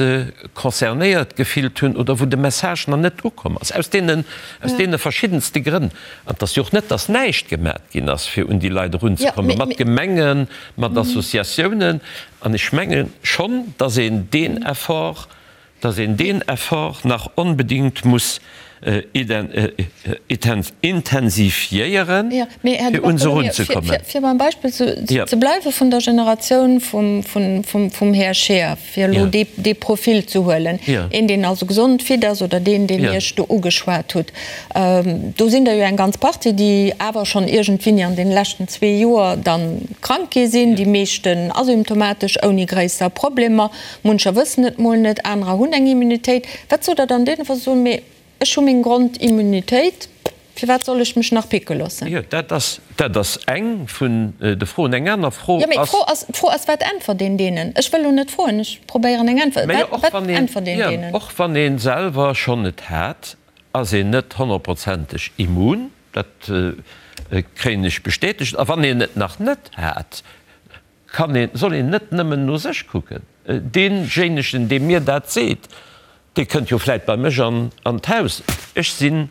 concernéiert gefillt hunn oder wou de Message nach net ukomm ass, aus deenen, aus deene verschiddenste Grënn. An et ass jo och net, datt näischt gemat ginn ass, fir un déi Leit erunzekommen, mat Gemengen, mat Associatiounen. An ech menge schonn, datt een deen Effort, datt een deen Effort nach onbedéngt muss intensifiéieren, fir un se erunzekommen. Fir beim Beispill ze bleiwe vun der Generatioun vum Här Scheer, fir elo dee Profil ze huelen, een, deen also gesond, fit ass, oder deen, deen Iech do ugeschwat hutt, do sinn der jo eng ganz Partie, déi awer schonn iergendwéini an deene leschten zwee Joer da krank gi sinn, déi meeschten asymptomatesch, ouni gréisser Problemer. Muncher wëssen et mol net, anerer hunn eng Immunitéit. Wat sot Der dann deenen, wa se soen, mee ech hu meng Grondimmunitéit, firwat soll ech mech nach picke loossen? Jo, dat ass, dat ass eng vun de Froen. Eng aner Fro ass. Jo, mee d'Fro ass, d'Fro ass, wat äntwert een deenen? Ech wëll elo net froen, ech probéieren eng Äntwert. Mä jo, och wann een, jo, och wann ee selwer schonn et hat, ass een net honnertprozenteg immun. Dat kréien ech bestätegt. A wann een et nach net hat, kann een, soll een net nëmmen no sech kucken. Deejéinegen, dee mir dat seet, dee kënnt jo vläit bei mech an d'Haus. Ech sinn,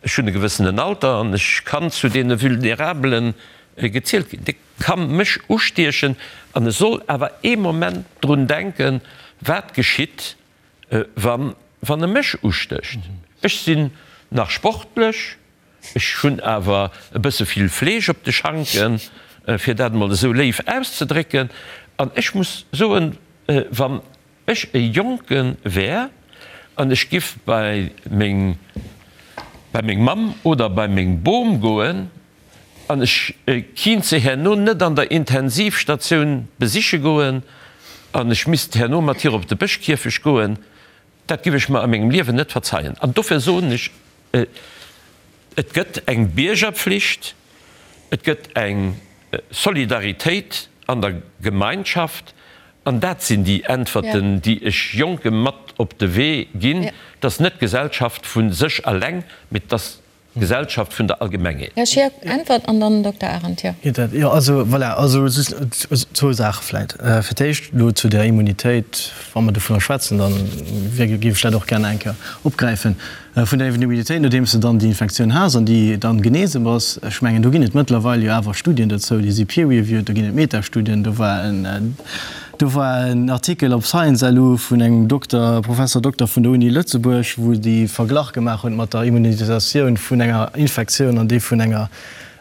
ech hunn e gewëssenen Alter an ech kann zu deene Vulnerabele gezielt ginn. Dee ka mech ustiechen an e soll awer ee Moment drun denken, wat geschitt, wann e mech ustécht. Ech sinn nach sportlech, Ech hunn awer e bësse vill Fleesch op de Schanken, fir dat emol esou léif auszedrécken. An ech muss soen, wann. ech e Jonke wär an ech giff bei meng, bei meng Mamm oder bei meng Bom goen an ech kinnt se herno net an der Intensivstatioun besiche goen an ech misst herno mat hir op de Bëschkierfecht goen, dat giff ech mer a mengem Liewen net verzeien. An dofir soen ech, Et gëtt eng Biergerpflicht, et gëtt eng Solidaritéit an der Gemeinschaft an dat sinn déi Äntwerten, déi ech Jonke mat op de Wee ginn. Et ass net d'Gesellschaft vu sech eleng, mee et ass d'Gesellschaft vun der Allgemengheet. Här Schirk, Äntwert an dann Dokter Arendt. Jo. Geet dat? Jo, also voilà, also just zwou Saache vläit. Fir d'éischt elo zu der Immunitéit, wa mer dovunner schwätzen, da géif ech dat och gär nach eng Kéier opgräifen. Vun der Immunitéit, nodeems de dann déi Infektioun has an déi dann genese bass, ech mengen, do ginn et mëttlerweil jo awer Studien dozou, déi si peer-reviewed, do ginn et Metastudien, do war en, do war en Artikel op Science LU vun engem Dokter, Professor Dokter vun der Uni Lëtzebuerg, wou déi Verglach gemaach hunn mat der Immunisatioun vun enger Infektioun an déi vun enger,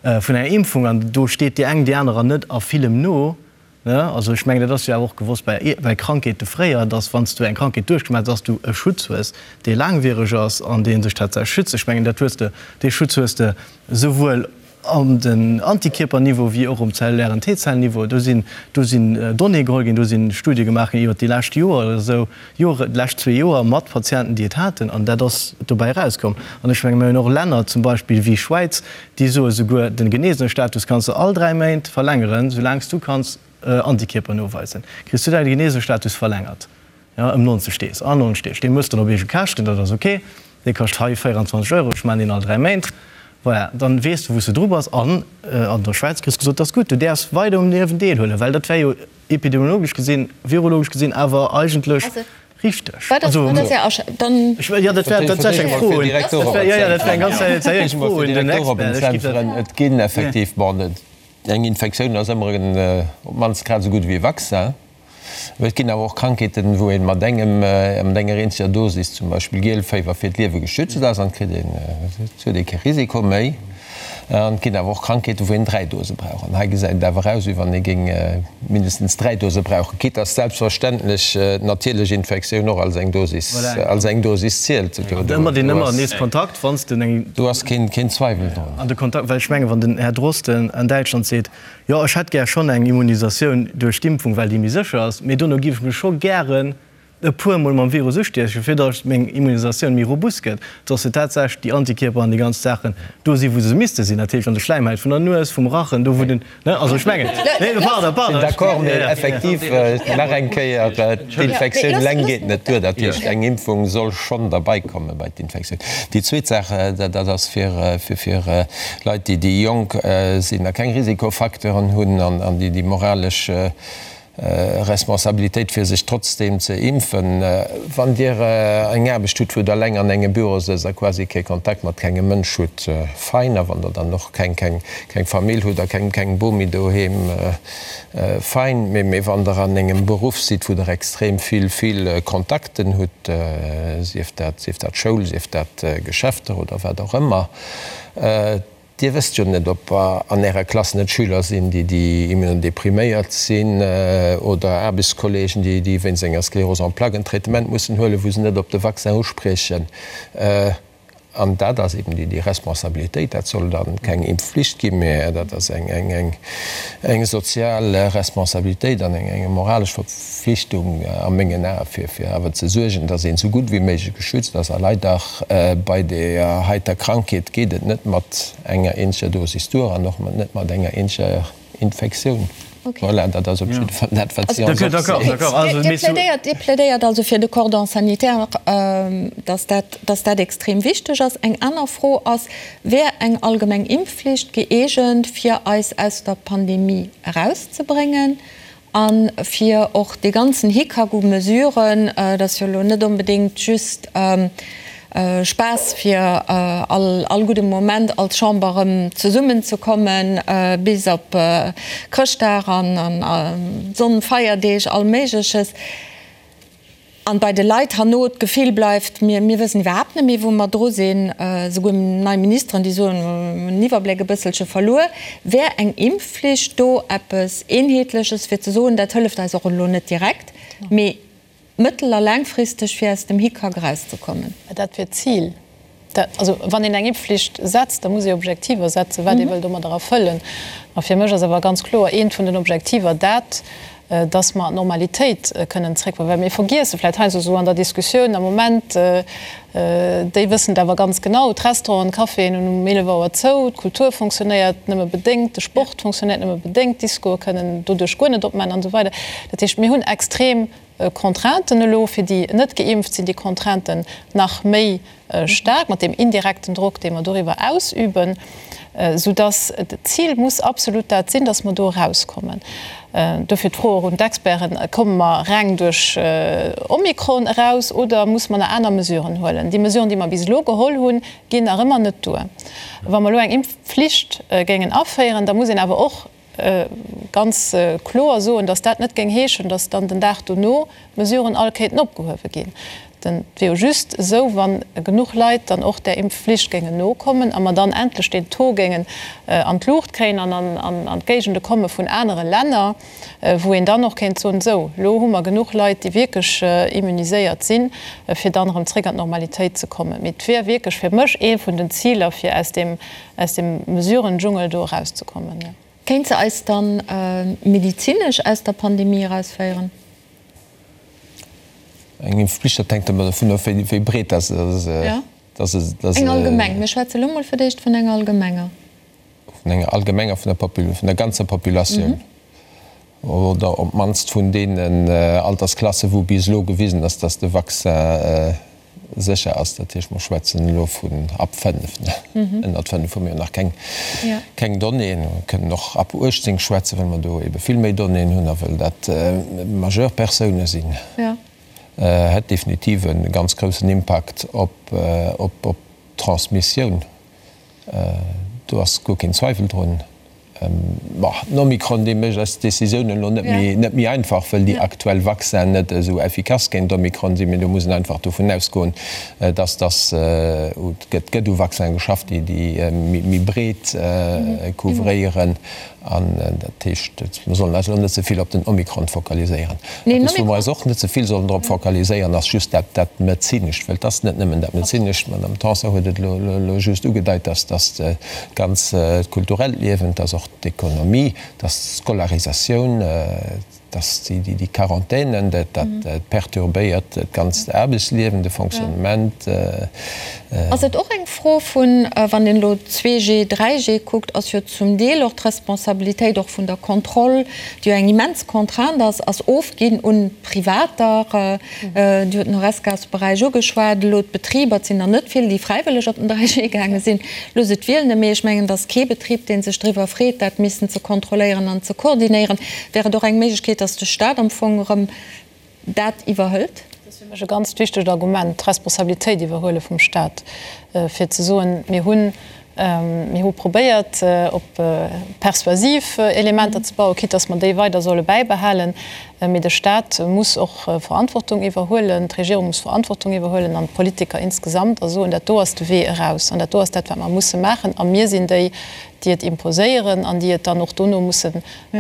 vun enger Impfung an do steet déi eng déi anerer net a villem no. Ne? Also ech mengen, dat ass jo awer och gewosst bei, bei Krankheete fréier, dass wann s du eng Krankheet duerchgemaach hues, dass du e Schutz hues, dee laangwiereg ass an dee sech tatsächlech schützt. Ech mengen, dat hues de, dee Schutz hues de souwuel an den Antikierperniveau wéi och um zellulären T-Zellniveau. Do sinn, do sinn Donnéeë geholl ginn, do si Studie gemaach ginn iwwert déi lescht Joer oder esou, Joer, déi lescht zwee Joer mat Patienten, déi et haten, an dat ass dobäi erauskomm. An ech menge mir hunn och Länner zum Beispill wéi Schwäiz, déi soe souguer, de Genesenestatus kanns de all 3 Méint verlängeren, soulaang s du kanns Antikierper noweisen, kriss du däi Genesenestatus verlängert, jo, ëm 90 Deeg, an 90 Deeg. Dee mëss dann op eege Käschten, dat ass ok, dee kascht hei 24 Euro, ech maachen deen all 3 Méint. Voilà, dann weess de wou s de dru bass. An an der Schwäiz kriss gesot, dat ass gutt, du däerfs weider um Liewen deelhuelen, well dat wär jo epidemiologesch gesinn, virologesch gesinn awer eigentlech richteg. Wat ass, wat ass Är Asch-, dann. Ech, jo, dat wär tatsächlech eng Fro un, dat wär, jo, jo, dat wär eng ganz seriéis Fro un den Expert. Ech géif dat. Et ginn effektiv, bon, eng Infektioun ass ëmmer en, op d'mannst grad esou gutt ewéi e Vaccin. Mee et ginn awer och Krankheeten, wou ee mat engem, mat enger eenzeger Dosis, zum Beispill Gielféiwer, fir d'Liewe geschützt ass an et kritt een, et huet ee kee Risiko méi. An et ginn awer och Krankheeten, wou een 3 Dose brauch. An hei gesäit et awer aus, wéi wann ee géing mindestens 3 Dose brauchen, quitte dass selbstverständlech d'natierlech Infektioun och als eng Dosis, als eng Dosis zielt. Do, do, Ëmmer deen ëmmer nees Kontakt, wann s de eng. Do ass keen, keen Zweiwel drun. An de Kontakt, well ech mengen, wann den Här Drosten an Däitschland seet, jo, ech hätt gär schonn eng Immunisatioun duerch d'Impfung, well déi méi sécher ass, mee dono géif ech mech scho gären e puer mol mam Virus ustiechen, fir datt meng Immunisatioun méi robust gëtt, datt se tatsächlech déi Antikierper an déi ganz Saachen do sinn, wou se misste sinn, dat heescht an de Schläimhäit vun der Nues, vum Rachen, do wou den, ne, also ech mengen, nee, pardon, pardon. Sinn d'accord, mee effektiv, nach eng Kéier, d'Infektioun eleng geet net duer, dat heescht eng Impfung soll schonn derbei komme bei d'Infektioun. Déi zweet Saach, dat ass fir fir Leit, déi déi jonk sinn a keng Risikofacteuren hunn an déi déi moralesch Responsabilitéit fir sech trotzdeem ze impfen. Wann Dir eng Aarbecht hutt, wou Der eleng an engem Büro sëtzt a quasi kee Kontakt mat kengem Mënsch hutt, fein. A wann Der dann och keng keng Famill hutt a keng keng Bomi doheem, fein. Mee mee wann Der an engem Beruff sidd, wou Der extrem vill vill Kontakten hutt, sief dat sief dat Schoul, sief dat Geschäfter oder wat och ëmmer, Dir wësst jo net, ob an Ärer Klass net Schüler sinn, déi déi immunodepriméiert sinn, oder Aarbechtskollegen, déi déi wéinst enger Sclérose en plaques en Traitement mussen huelen, wou se net op de Vaccin uspriechen. An dat ass eben déi déi Responsabilitéit. Dat soll da keng Impfflicht ginn, mä dat ass eng eng eng eng sozial Responsabilitéit an eng eng moralesch Verpflichtung a mengen Ae, fir fir awer ze suergen, dass een esou gutt wéi méiglech geschützt ass. A leider Bei deeër heiter Krankheet geet et net mat enger eenzeger Dosis duer an och net mat enger eenzeger Infektioun. Voilà, dat ass op jidde Fall dat, wat si ons opzielt. Dir plädéiert also fir de Cordon sanitaire, dass dat, dass dat extrem wichteg ass. Eng aner Fro ass, Wär eng allgemeng Impfflicht gëeegent, fir eis aus der Pandemie erauszebréngen? A fir och dee ganzen Hickhack u Mesuren, dat ass jo elo net onbedéngt just Spaass fir all gudde Moment als Chamber erëm zesummenzekommen, bis op Chrëschtdag an Sonnfeierdeeg, all Méigleches. An bei de Leit herno d'Gefill bleift, mir, mir wëssen iwwerhaapt net méi, wou mer dru sinn. Esouguer nei Ministeren, déi soen, mir hunn den Iwwerbléck e bësselche verluer. Wär eng Impfflicht do eppes Eenheetleches, fir ze soen, dat hëlleft eis och elo net direkt, mee. Mëttel a laangfristeg fir aus dem Hickhack erauszekommen? Dat wier d'Zil. Also wann een eng Impfflicht setzt, da muss ee Objektiver setzen, wat ee wëll domadder erfëllen. A fir mech ass awer ganz kloer eent vun den Objektiver dat, dass mer an d'Normalitéit kënnen zréckkommen. Well mir vergiesse vläicht heiansdo esou an der Diskussioun am Moment, déi wëssen et awer ganz genau, d'Restauranten, d'Caféen hunn um 11 Auer zou, d'Kultur fonctionnéiert nëmme bedéngt, de Sport fonctionnéiert nëmme bedéngt, d'Discoe kënnen doduerch guer net opmaachen an esou weider. Dat heescht, mir hunn extrem Contrainten elo, fir déi net geimpft sinn déi Contrainten nach méi staark mat deem indirekten Drock, dee mer doriwwer ausüben, soudass d'Zil muss absolut dat sinn, dass mer do erauskommen. Dofir d'Fro och un d'Experten, Komme mer reng duerch Omikron eraus oder muss mer nach aner Mesuren huelen? Déi Mesuren, déi mer bis elo geholl hunn, ginn nach ëmmer net duer. Wa mer elo eng Impfflicht géingen aféieren, da muss een awer och ganz kloer soen, datt dat net géing heeschen, datt dann den Dag dono d'Mesuren all kéinten opgehuewe ginn. Et wier jo just esou, wa genuch Leit dann och där Impfflicht géingen nokommen a mer dann endlech deen Taux géingen an d'Luucht kréien an an d'Géigende komme vun anere Länner, wou een dann och kéint soen, esou, elo hu mer genuch Leit, déi wierklech immuniséiert sinn, fir dann erëm zréck an d'Normalitéit ze kommen. Mee et wier wierklech fir mech ee vun den Ziler, fir aus deem aus dem Mesurendschungel do erauszekommen. Kéint se eis dann medizinesch aus der Pandemie erausféieren? Eng Impfpflicht, dat hänkt ëmmer dovun of, wéi breet dat ass. Jo, eng allgemeng. Mir schwätze elo mol fir d'éischt vun enger allgemenger. Vun enger allgemenger, vun der ganzer Populatioun. Oder op d'mannst vun deenen Altersklassen, wou bis elo gewisen ass, dass de Vaccin sécher ass. Dat heescht, mer schwätzen elo vun ab 5. Ënnert 5 hu mir jo nach keng Donnéeën. Mer kënnen och ab 18 schwätzen, well mer do ebe vill méi Donnéeën hunn a well dat majeur Persoune sinn. Hätt definitiv e ganz groussen Impakt op d'Transmissioun. Do ass guer keen Zweiwel drun. Bon, den Omikron, dee mécht eis d'Décisiounen elo net méi, net méi einfach, wëll déi aktuell Vaccinen net esou effikass géint Omikron sinn. Mee do muss een einfach dovun ausgoen, dass dass et gëtt gëtt u Vaccinen geschafft, déi déi méi breet couvréieren. An dat heescht, mir sollen eis elo net ze vill op den Omikron fokaliséieren. Eppes, wou mer eis och net ze vill sollen drop fokaliséieren, ass just dat dat Medezinescht, well et ass net nëmmen dat Medezinescht. D'Madame Tanson huet et elo just ugedeit, dass dass d'ganz kulturellt Liewen, dass och d'Ekonomie, dass d'Scolarisatioun, dass déi Quarantänen, dat perturbéiert d'ganzt Aarbechtsliewen, de Fonctionnement. Ass et och eng Fro vun, wann een elo 2G, 3G kuckt, ass jo zum Deel och d'Responsabilitéit och vun der Kontroll, déi jo eng immens Contrainte ass, ass ofginn un Privater. Dir hutt den Horesca-Beräich ugeschwat, elo d'Betriber, et sinn der net vill, déi fräiwëlleg op den 3G gaange sinn. Looss et wielen, mee ech mengen, et ass kee Betrib, dee sech driwwer freet, dat missen ze kontrolléieren an ze koordinéieren. Wär et och eng Méiglechkeet, datt de Stat am Fong erëm dat iwwerhëlt? Dat ass fir mech e ganzt wichtegt Argument, d'Responsabilitéit iwwerhuele vum Stat, fir ze soen, mir hunn, mir hu probéiert, op persuasiv Elementer ze bauen, quitte datt mer déi weider solle bäibehalen, mee de Stat muss och Verantwortung iwwerhuelen, d'Regierung muss Verantwortung iwwerhuelen an d'Politiker insgesamt a soen, dat do ass de Wee eraus an dat do ass dat, wat mer musse maachen a mir sinn déi, déi et imposéieren an déi et dann och dono musse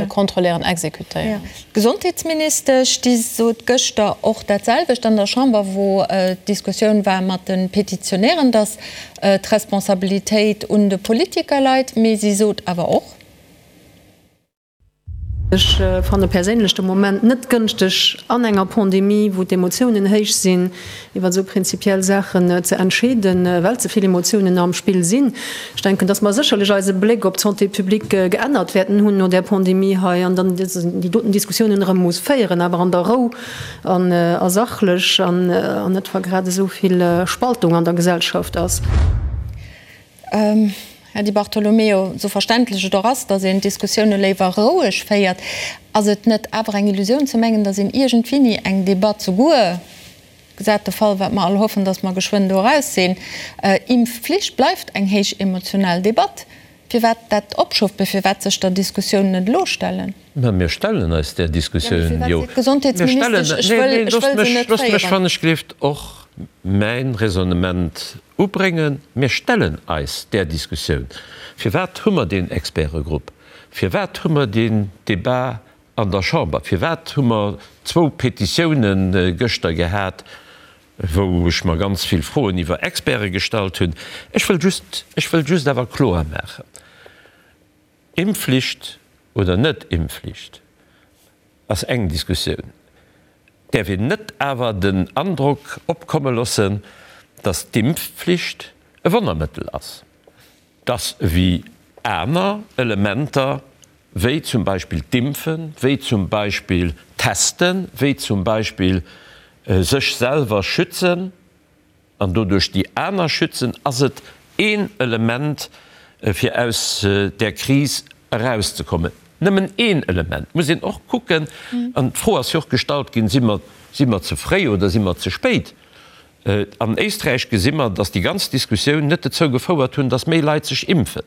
kontrolléieren, exekutéieren. D'Gesondheetsministesch, déi sot gëschter och dat selwecht an der Chamber, wou d'Diskussioun war mat de Petitionären, datt d'Responsabilitéit un de Politiker leit. Mee si sot awer och. Ech fanne perséinlech de Moment net gënschteg, an enger Pandemie, wou d'Emotiounen héich sinn, iwwer esou prinzipiell Saachen ze entscheeden, well ze vill Emotiounen am Spill sinn. Ech denken, dass mer sécherlech eise Bléck op d'Santé publique geännert wäerten hunn no där Pandemie hei an dann déi doten Diskussiounen erëm muss féieren, awer an der Rou an a sachlech an net, wa grad esou vill Spaltung an der Gesellschaft ass. Här Di Bartolomeo, esou verständlech et och ass, datt een d'Diskussioune léiwer roueg féiert, ass et net awer eng Illusioun ze mengen, datt een iergendwéini eng Debatt, souguer gesat de Fall, wat mer all hoffen, datt mer geschwënn do eraus sinn, Impfflicht bleift eng héich emotional Debatt, firwat dat opschoft, firwat sech der Diskussioun net elo stellen? Mä mir stellen eis där Diskussioun jo. Mir stellen, nee, nee, loosst mech, loosst mech wann ech gleeft och mäin Raisonnement ubréngen. Mir stellen eis där Diskussioun. Firwat hu mer deen Expertegrupp? Firwat hu mer deen Débat? an der Chamber, firwat hu mer zwou Petitiounen gëschter gehat, wou ech mer ganz vill Froen iwwer Experte gestallt hunn. Ech wëll just, ech wëll just awer kloer maachen, Impfflicht oder net Impfflicht ass eng Diskussioun. Et däerf een net awer den Androck opkomme loossen, datt d'Impfflicht e Wonnermëttel ass. Dass ewéi aner Elementer, wéi zum Beispill d'Impfen, wéi zum Beispill d'Testen, wéi zum Beispill sech selwer schützen an doduerch déi aner schützen, ass et een Element, fir aus där Kris erauszekommen. Nëmmen een Element. Muss een och kucken, an d'Fro ass jo och gestallt ginn, Si mer, si mer ze fréi oder si mer ze spéit? An Éisträich gesi mer, datt déi ganz Diskussioun net dozou gefouert hunn, datt méi Leit sech impfen.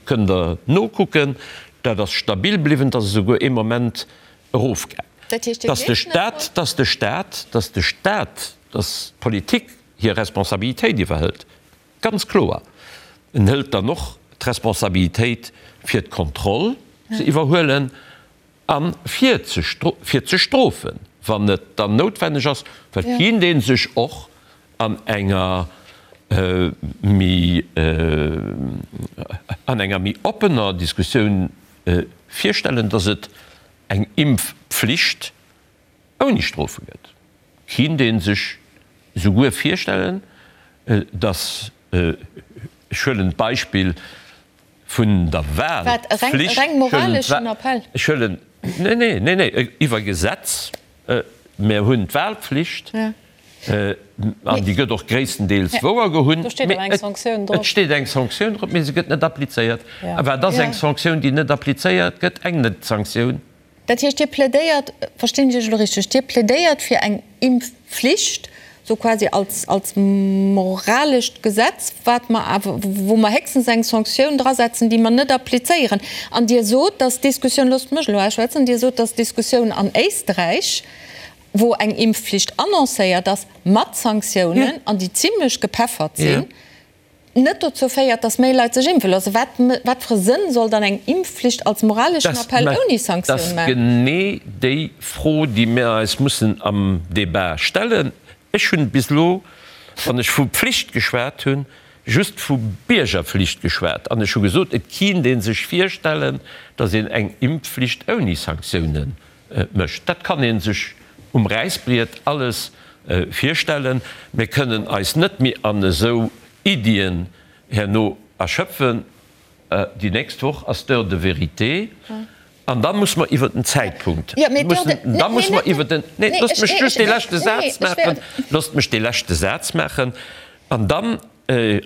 Kënnt Der nokucken, dat ass stabil bliwwen, et ass esouguer ee Moment erofgaang. Datt de Staat, datt de Staat, datt de Staat, datt d'Politik hir Responsabilitéit iwwerhëlt, ganz kloer. En hëlt dann och d'Responsabilitéit fir d'Kontroll ze iwwerhuelen. A fir ze fir ze strofen, wann et dann noutwenneg ass, well et kéint ee sech och an enger méi an enger méi oppener Diskussioun virstellen, datt et eng Impfpflicht ouni Strofe gëtt. Kéint ee sech souguer virstellen, datt, ech huelen d'Beispill vun der Wahlpflicht, ech huelen, nee, nee, nee, nee, iwwer Gesetz, mir hunn d'Wahlpflicht an déi gëtt och gréisstendeels wouergehunn, mee et steet eng Sanktioun drop, mee se gëtt net applizéiert. A wat ass eng Sanktioun, déi net applizéiert gëtt? Eng Net-Sanktioun. Dat heescht, Dir plädéiert, verstinn ech Iech elo richteg, Dir plädéiert fir eng Impfflicht, sou quasi als, als moralescht Gesetz, wat mer awer, wou mer héchstens eng Sanktioun drasetzen, déi mer net applizéieren. An Dir sot, dass d'Diskussioun, loosst mech elo ausschwätzen, Dir sot, dass d'Diskussioun an Éisträich, wou eng Impfflicht annoncéiert ass, mat Sanktiounen, an déi zimlech gepeffert sinn, net dozou féiert, dass méi Leit sech impfe loossen. Wat, wat fir e Sënn soll dann eng Impfflicht als moraleschen Appell ouni Sanktioun maachen? Dat ass genee déi Fro, déi mir eis mussen am Débat stellen. Ech hunn bis elo, wann ech vu Pflicht geschwat hunn, just vu Biergerpflicht geschwat. An ech hu gesot, et kinnt ee sech virstellen, dass een eng Impfflicht ouni Sanktioune mécht. Dat kann ee sech um Räissbriet alles virstellen. Mir kënnen eis net méi an esou Iddien herno erschöpfen. Déi nächst Woch ass d'Heure de vérité an da muss mer iwwer den Zäitpunkt, da muss mer iwwer den, nee, loosst mech just dee leschte Saz maachen, loosst mech dee leschte Saz maachen, an dann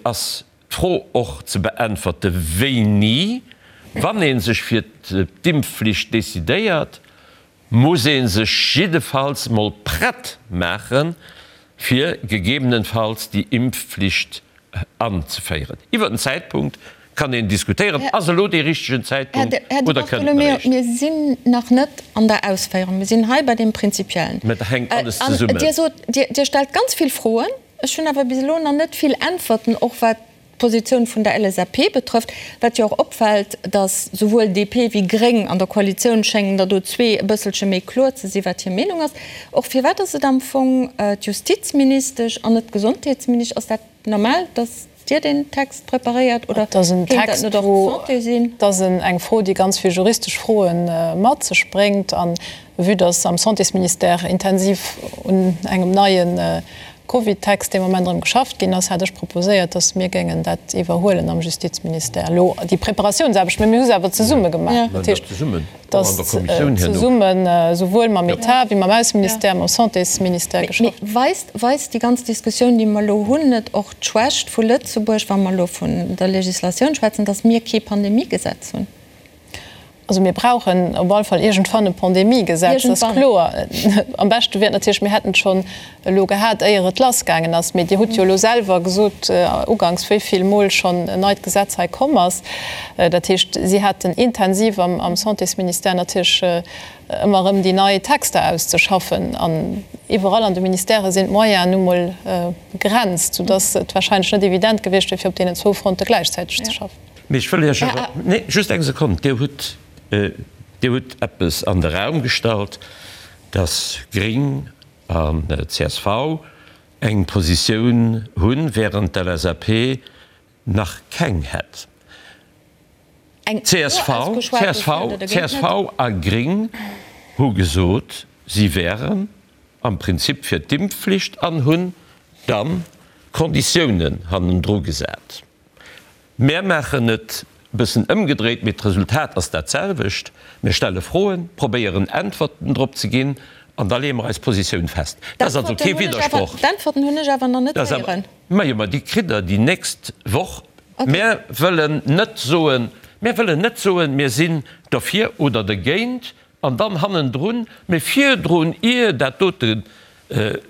ass D'Fro och ze beäntwerte wéini, wann ee sech fir d'Impfflicht decidéiert, muss ee sech jiddefalls mol prett maachen, fir gegebenenfalls déi Impfflicht anzeféieren. Iwwer den Zäitpunkt kann een diskutéieren. Ass elo dee richtegen Zäitpunkt Här Di oder kënnt en Bartolomeo, eréischt? mir sinn nach net an der Ausféierung. Mir sinn hei bei deem Prinzipiellen. Mä dat hänkt alles An zesummen. Dir sot, Dir stellt ganz vill Froen. Ech hunn awer bis elo nach net vill Äntwerten, och wat d'Positioun vun der LSAP betrëfft. Wat jo och opfält, datt souwuel DP wéi Gréng an der Koalitioun schéngen der do zwee e bësselche méi kloer ze sinn, wat hir Meenung ass. Och firwat ass et am Fong d'Justizministesch an net d'Gesondheetsministesch? Ass dat normal, datt Dir deen Text preparéiert oder kéint dat net och d'Santé sinn? Dat ass eng Fro, déi ganz vill juristesch Froe mat sech bréngt. A vue datt am Santésministère intensiv un engem neie Covid-Text dee Moment erëm geschafft ginn ass, hat ech proposéiert, datt mir géingen dat iwwerhuelen am Justizministère elo, déi Preparatiounsaarbecht. Mä mir hu se awer zesumme gemaach. Dat heescht, datt zesummen, esouwuel mam Etat wéi mam Ausseministère, mam Santésministère geschafft. Mee weist, weist déi ganz Diskussioun, déi mer elo hunn, net och d'Schwächt vu Lëtzebuerg, wa mer elo vun der Législatioun schwätzen, datt mir kee Pandemiegesetz hunn? Also mir brauchen op alle Fall iergendwann e Pandemiegesetz, dat ass kloer. Am beschte wier et natierlech, mir hätten et schonn elo gehat, éier et lassgaangen ass. Mee Dir hutt jo elo selwer gesot uganks, wéi vill Mol schonn en neit Gesetz hei komm ass. Dat heescht, si haten intensiv am Santésministère natierlech ëmmer erëm déi nei Texter auszeschaffen. An iwwerall an de Ministèrë sinn d'Moyenen nu mol begrenzt, soudass et wahrscheinlech net evident gewiescht wier, fir op deenen zwou Fronte gläichzäiteg ze schaffen. Mee ech wëll Iech awer, nee, just eng Sekonn, Dir hutt. Dir hutt eppes an de Raum gestallt, dass Gring an csv eng Positioun hunn, während d'LSAP nach keng hätt. Csv, csv, csv a Gring hu gesot, si wären am Prinzip fir d'Impfflicht an hunn dann Konditiounen hannendru gesat. Mär maachen et e bëssen ëmgedréit, mee d'Resultat ass dat selwecht, Mir stelle Froen, probéieren Äntwerten drop ze ginn an da leeë mer eis Positioun fest. Dat ass also kee Widdersproch. D'Äntwerten hunn ech awer nach net héieren. Majo, ma déi kritt Der déi nächst Woch. Mär wëllen net soen, mär wëllen net soen, mir sinn derfir oder dergéint an dann hannendrun, mee virdrun, ier dat dote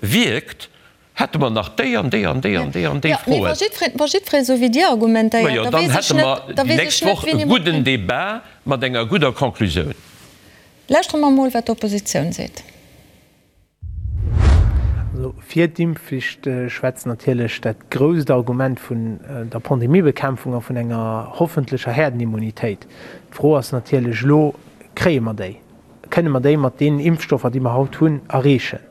wierkt, Hätte mer nach déi an déi an déi an déi an déi Froen. Mee wa jiddweree esou wéi Dir argumentéiert, da weess ech net, da weess ech net, wéini mer. Majo, dann hätte mer déi nächst Woch e gudden Débat mat enger gudder Conclusioun. Lauschtere mer emol, wat d'Oppositioun seet. Also fir d'Impfflicht schwätzt natierlech dat grousst Argument vun der Pandemiebekämpfung a vun enger hoffentlecher Herdenimmunitéit. D'Fro ass natierlech elo, Kréie mer déi? Kënne mer déi mat deenen Impfstoffer, déi mer haut hunn, erreechen?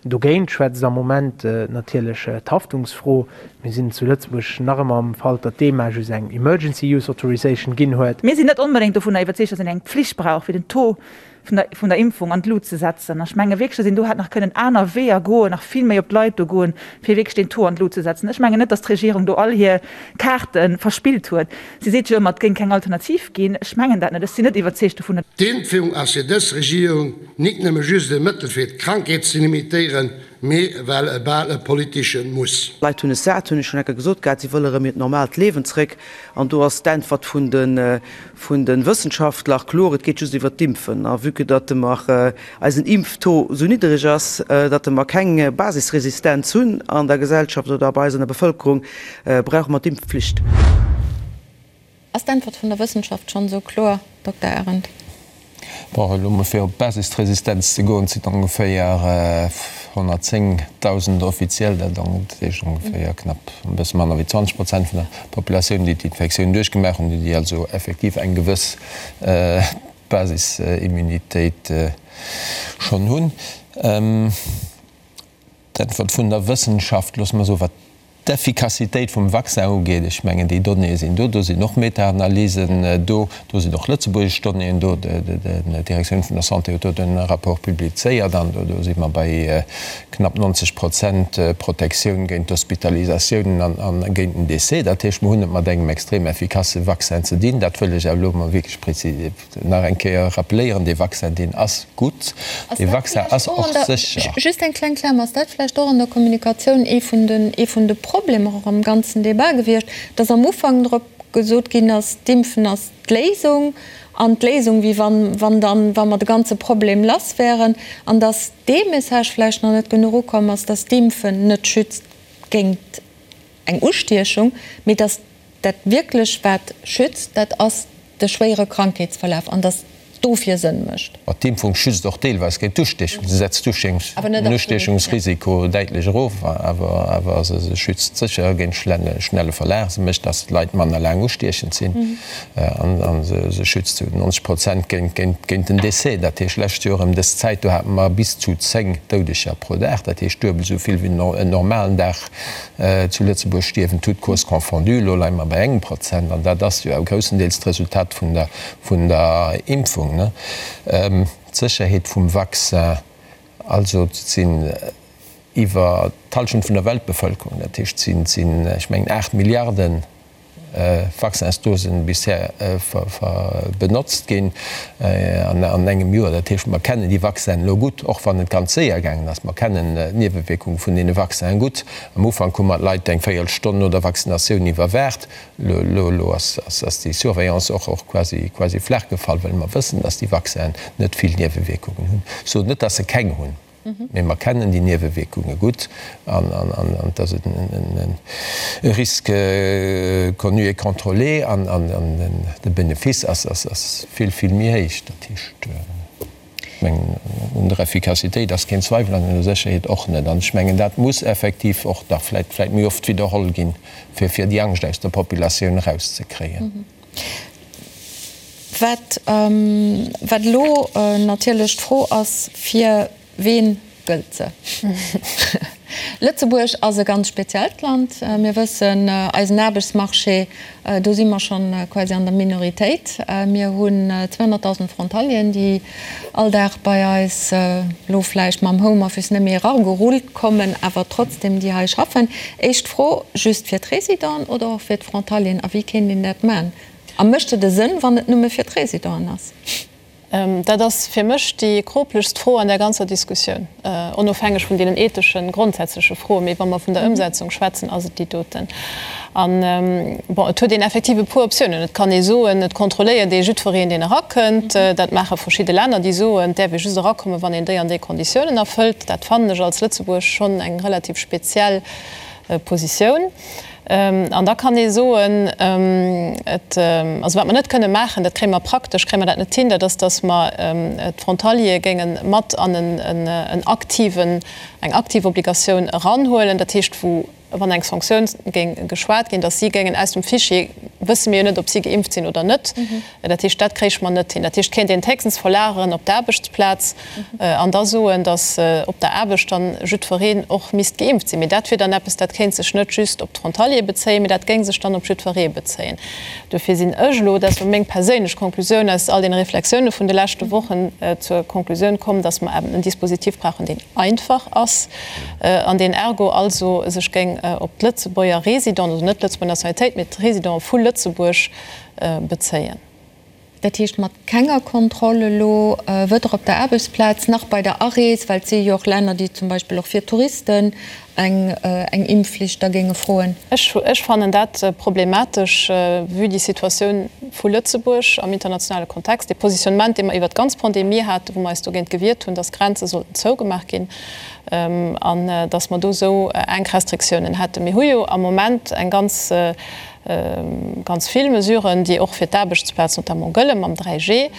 Dogéint schwätzt am Moment natierlech d'Haftungsfro. Mir sinn zu Lëtzebuerg nach ëmmer am Fall, datt d'EMA just eng Emergency Use Authorization ginn huet. Mir sinn net onbedéngt dovunner iwwerzeegt, datt een eng Pflicht brauch, fir den Taux vun der, vun der Impfung an d'Lut ze setzen. Ech menge wierklech, datt een do hätt nach kënnen aner Weeër goen, nach vill méi op d'Leit do goen, fir wierklech deen Taux an d'Lut ze setzen. Ech mengen net, datt d'Regierung do all hir Kaarte verspillt huet. Si seet jo ëmmer, et géing keng Alternativ ginn. Ech mengen dat net. Ech sinn net iwwerzeegt dovun. D'Impfung ass fir dës Regierung nik nëmme just e Mëttel fir d'Krankheet ze limitéieren, mee well e bal e politesche Muss. D'Leit hunn es sat, hunn ech schonn enker gesot gehat, si wëlle rëm hiert normaalt Liewen zréck. An do ass d'Äntwert vun de vun de Wëssenschaftler kloer, et geet just iwwert d'Impfen. A vue que datt mer eisen Impftaux esou niddereg ass, datt mer keng Basisresistenz hunn an der Gesellschaft oder bei eis an der Bevëlkerung, brauche mer d'Impfpflicht. Ass d'Äntwert vun der Wëssenschaft schonn esou kloer, Dokter Arendt? Bon, elo mol fir op d'Basisresistenz ze goen, et sinn ongeféier 110.000 offiziell, dat heescht ongeféier knapp e bësse manner wéi 20 Prozent vun der Populatioun, déi d'Infektioun duerchgemaach hunn, déi also effektiv eng gewëss Basisimmunitéit schonn hunn. D'Äntwert vun der Wëssenschaft, loosse mer soen, wat d'Effikassitéit vum Vaccin ugeet, ech mengen, déi Donnéeë sinn do, do sinn och Meta-Analysen do, do sinn och lëtzebuergesch Donnéeën do, d'Direktioun vun der Santé huet do de Rapport publizéiert an do si mer bei knapp 90 Prozent Protektioun géint d'Hospitalisatiounen an géint den Décès. Dat heescht, mer hunn et mat engem extrem effikasse Vaccin ze dinn. Dat wëll ech awer elo emol wierklech Nach eng Kéier rappeléieren, Dee Vaccin, deen ass gutt, dee Vaccin ass och sécher. Just eng kleng Klammer, Ass dat vläicht och an der Kommunikatioun ee vun den, ee vun de Problemer och am ganzen Débat gewiescht, dass am Ufank drop gesot ginn ass, d'Impfen ass d'Léisung an d'Léisung, wéi wann, wann dann, wa mer de ganze Problem lass wären, an dass dee Message vläicht nach net genuch ukomm ass, dass d'Impfen net schützt géint eng Ustiechung, mee dass dat wierklech wat schützt, dat ass de schwéiere Krankheetsverlaf an dass dofir Sënn mécht. Ma d'Impfung schützt och deelweis géint d'Ustiechung. Se setzt den Ustiechungsrisiko däitlech erof, awer se schützt sécher géint schnelle Verlaf. Se mécht, dass d'Leit manner laang ustiechend sinn a se schützt zu 90 Prozent géint den Décès. Dat heescht, lescht Joer ëm dës Zäit, do hate mer bis zu 10 Doudeger pro Dag, dat heescht duebel esou vill wéi en normalen Dag Zu Lëtzebuerg stierwen, toutes causes confondues, elo leie mer bei engem Prozent, an dat ass jo awer groussendeels d'Resultat vun der, vun der Impfung, ne? D'Sécherheet vum Vaccin, also et sinn iwwer d'Hallschent vun der Weltbevëlkerung, dat heescht et sinn, sinn, ech mengen 8 Milliarden Vaccinsdosen bisher benotzt ginn an engem Joer. Dat heescht, mer kennen déi Vaccinen elo gutt, och wann et ganz séier gaangen ass. Mer kennen d'Niewewierkung vun deene Vaccinen gutt. Am Ufank hu mer d'Leit eng Véierelstonn no der Vaccinatioun iwwerwaacht. Elo ass déi Surveillance och quasi flaach gefall, well mer wëssen, dass déi Vaccinen net vill Niewewierkungen hunn. Ech soen net, dass se keng hunn. Mee mer kennen déi Niewewierkunge gutt an et ass e Risque connu et contrôlé an de Benefice ass vill, vill méi héich. Dat heescht, ech mengen, un der Effikassitéit ass keen Zweiwel an un der Sécherheet och net. An ech mengen, dat muss effektiv och nach vläicht méi oft widderholl ginn, fir déi Angscht aus der Populatioun erauszekréien. Wat, wat elo natierlech d'Fro ass, Fir ween gëllt se? Lëtzebuerg ass e ganz speziellt Land. Mir wëssen, eisen Aarbechtsmarché, do si mer schonn quasi an der Minoritéit. Mir hunn 200.000 Frontalieren, déi all Dag bei eis elo vläicht mam Homeoffice net méi eragerullt kommen, awer trotzdem déi hei schaffen. Éischt Fro, just fir d'Résidenten oder och fir d'Frontalieren? A wéi kéint een dat maachen? A mécht et e Sënn, wann et nëmme fir d'Résidenten ass? Dat ass fir mech déi kroplechst Fro an där ganzer Diskussioun, onofhängeg vun deenen etheschen, grondsätzleche Froen. Mee wa mer vun der Ëmsetzung schwätzen, ass et déi doten. An, bon, et huet een effektiv e puer Optiounen. Et kann ee soen, et kontrolléiert ee jiddwereen, deen erakënnt. Dat maache verschidde Länner, déi soen, et däerf ee just erakommen, wann een déi an déi Konditiounen erfëllt. Dat fannen ech als Lëtzebuerg schonn eng relativ speziell Positioun. An da kann ee soen, et, also wat mer net kënne maachen, dat kréie mer praktesch, kréie mer dat net hin, dat ass, datt mer d'Frontaliere géinge mat an en aktiven, eng aktiv Obligatioun eranhuelen, dat heescht wou, wann eng Sanktioun géing geschwat ginn, datt si géingen aus dem Fichier, wësse mir jo net, ob si geimpft sinn oder net, Dat heescht, dat kréich mer net hin. Dat heescht, kéint een d'héchstens verlageren op d'Aarbechtsplaz an da soen, datt op der Aarbecht dann jiddwereen och misst geimpft sinn. Mee dat wier dann eppes, dat kéint sech net just op d'Frontaliere bezéien, mee dat géing sech dann op jiddweree bezéien. Dofir sinn ech elo, dat ass elo meng perséinlech Konklusioun aus all deene Reflexioune vun de leschte Wochen, zur Konklusioun komm, datt mer eben en Dispositif brauchen, deen einfach ass an deen ergo also sech géing op d'Lëtzebuerger Résidenten, also net d'Lëtzebuerger Nationalitéit, mee d'Résidenten vu Lëtzebuerg, bezéien. Dat heescht mat kenger Kontroll elo, weder op der Aarbechtsplaz nach bei der Arees, well et si jo och Länner, déi zum Beispill och fir Touristen eng Impfflicht da géinge froen. Ech fannen dat problematesch, vue déi Situatioun vu Lëtzebuerg am internationale Kontext, dee Positionnement, dee mer iwwert d'ganz Pandemie haten, wou mer eis dogéint gewiert hunn, dass d'Grenze sollten zougemaach ginn an dass mer do esou enk Restriktiounen hätten. Mir hu jo am Moment eng ganz Ganz vill Mesuren, déi och fir d'Aarbechtsplaz notamment gëlle mam 3G.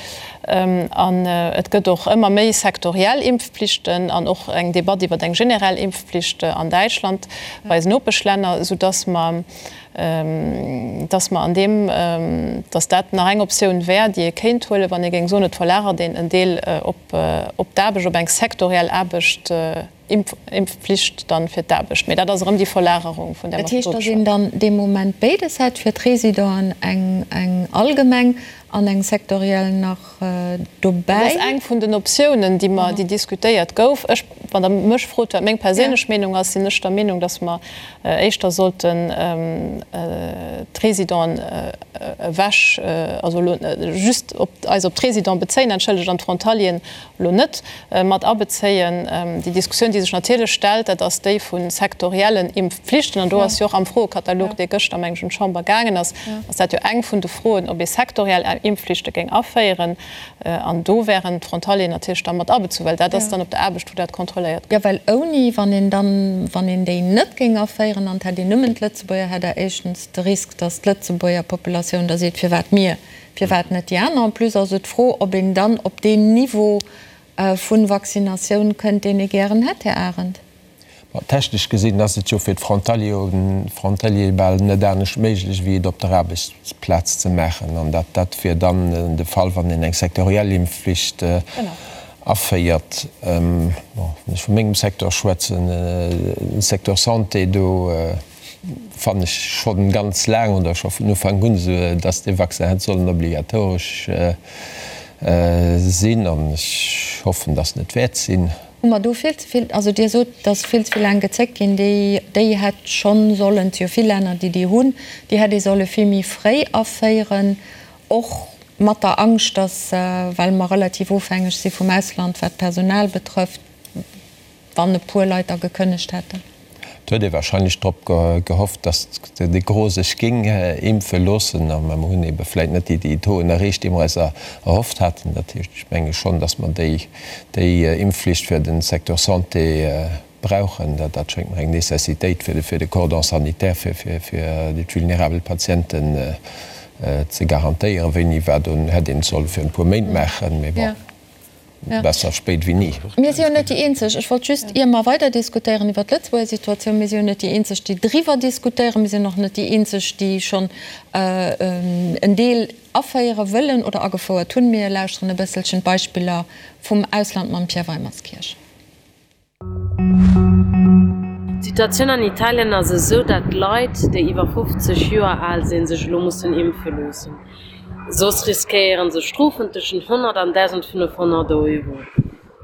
An et gëtt och ëmmer méi sektoriell Impfpflichten an och eng Debatt iwwer eng generell Impfpflicht an Däitschland, bei eisen Nopeschlänner, soudass mer, dass mer an deem, dass dat nach eng Optioun wär, déi ee kéint huelen, wann ee géing soen, et verlagert een en Deel op d'Aarbecht, op eng sektoriell Aarbecht. Impfflicht dann fir d'Aarbecht, mee dat ass erëm déi Verlagerung, vun där mer Dat heescht, datt een dann dee Moment béides hätt, fir d'Résidenten eng eng allgemeng an eng sektoriell nach dobäi? Dat ass eng vun den Optiounen, déi mer, déi diskutéiert gouf. Ech, wann Der mech frot, wat meng perséinlech Meenung ass, sinn ech der Meenung, datt mer éischter sollten d'Résidenten ewech, also elo just op eis op d'Résidenten bezéien, entschëllegt, an d'Frontalieren elo net mat abezéien. Déi Diskussioun, déi sech natierlech stellt, dat ass déi vu sektoriellen Impfpflichten. An do ass jo och am Froekatalog, dee gëschter, meng ech, un d'Chamber gaangen ass, ass dat jo eng vun de Froen, ob ee sektoriell Impfpflichte géing aféieren. An do wären d'Frontalieren natierlech da mat abezu, well dat ass dann op der Aarbecht, wou dat kontrolléiert gëtt. Jo, well ouni, wann een dann, wann een déi net géing aféieren an et hätt een nëmmen d'Lëtzebuerger, hätt Der éischtens de Risk, datt d'Lëtzebuerger Populatioun da seet, firwat mir? Firwat net déi aner? En plus ass et d'Fro, ob een dann op deen Niveau vu Vaccinatioun kënnt, deen ee gären hätt, Här Arendt. Ma technesch gesinn ass et jo fir d'Frontaliere bal net anescht méiglech, wéi et op der Aarbechtsplaz ze maachen. An dat dat wier dann de Fall, wann een eng sektoriell Impfflicht aféiert. Bon, wann ech vu mengem Secteur schwätzen, de Secteur Santé, do fannen ech schonn ganz laang oder scho vun Ufank un esou, dass dee Vaccin hätt sollen obligatoresch sinn an ech hoffen, dass en et wäert sinn. Hu mer do vill ze vill, also Dir sot, dass vill ze vill laang gezéckt ginn, déi déi hätt schonn sollen, et si jo vill Länner, déi déi hunn, déi hätt ee solle vill méi fréi aféieren, och mat der Angscht, dass, well mer relativ ofhängeg si vum Ausland, wat d'Personal betrëfft, Wann e puer Leit da gekënnegt hätten. Et huet ee wahrscheinlech drop gehofft, datt de Gros sech géing impfe loossen. A mer hunn ebe vläit net déi Tauxen erreecht, déi mer eis erhofft haten. Dat heescht, ech menge schonn, datt mer déi Impfflicht fir de Secteur Santé brauchen. Dat schéngt mer eng Necessitéit fir de Cordon sanitaire fir déi vulnerabel Patienten ze garantéieren. Wéini, wat, hätt een et solle virun e puer Méint maachen, mee bon. Besser spéit wéi ni. Mir si jo net déi eenzeg. Ech wollt just, ier mer weider diskutéieren iwwert d'Lëtzebuerger Situatioun, mir si jo net déi eenzeg, déi driwwer diskutéieren. Mir sinn och net déi eenzeg, déi schonn en Deel aféiere wëllen oder agefouert hunn. Mir lauschteren e bësselchen d'Beispiller vum Ausland mam Pierre Weimerskirch. D'Situatioun an Italien ass esou, dat Leit, déi iwwer 50 Joer al sinn, sech elo mussen impfe loossen. Soss riskéiere se Strofen tëschent 100 an 1.500 Euro.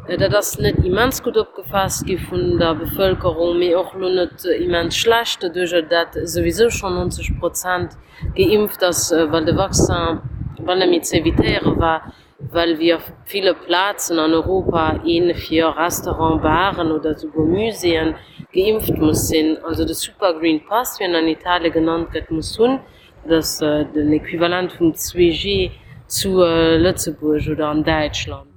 Dat ass net immens gutt opgefaasst gi vun der Bevëlkerung, mee och elo net immens schlecht, doduercher dat souwisou schonn 90 Prozent geimpft ass, well de Vaccin bal net méi ze evitéiere war. Well wéi a ville Plazen an Europa ee fir Restaurant, Baren oder esouguer Muséeën geimpft muss sinn, also de Super Green Pass, wéi en an Italie genannt gëtt, muss hunn, dat ass den Equivalent vum 2G zu Lëtzebuerg oder an Däitschland.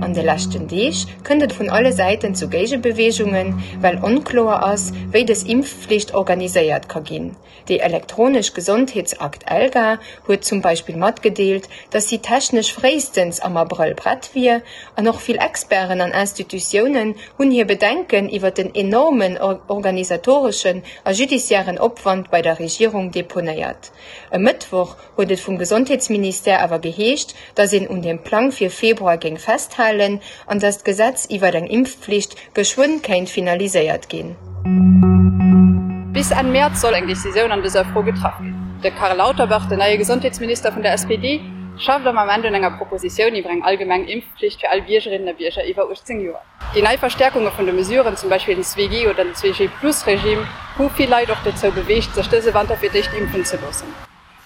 An de leschten Deeg kënnt et vun alle Säiten zu Géigebeweegungen, well onkloer ass, wéi dës Impfflicht organiséiert ka ginn. Déi elektronesch Gesondheetsakt ELGA huet zum Beispill matgedeelt, datt si technesch fréistens am Abrëll prett wier, an och vill Experten an Institutiounen hunn hir Bedenken iwwer den enormen organisatoreschen a judiciairen Opwand bei der Regierung deponéiert. E Mëttwoch huet et vum Gesondheetsministère awer geheescht, datt een un dem Plang fir Februar géing festhalen an datt d'Gesetz iwwer eng Impfpflicht geschwënn kéint finaliséiert ginn. Bis Enn Mäerz soll eng Decisioun an dëser Fro getraff ginn. De Karl Lauterbach, den neie Gesondheetsminister vun der SPD, schafft am Ament un enger Propositioun iwwer eng allgemeng Impfpflicht fir all Biergerinnen a Bierger iwwer 18 Joer. Déi nei Verstäerkunge vun de Mesuren, zum Beispill den 2G oder den 2G-Plus-Regime, hu vill Leit och dozou beweegt, sech dëse Wanter fir d'éischt impfen ze loossen.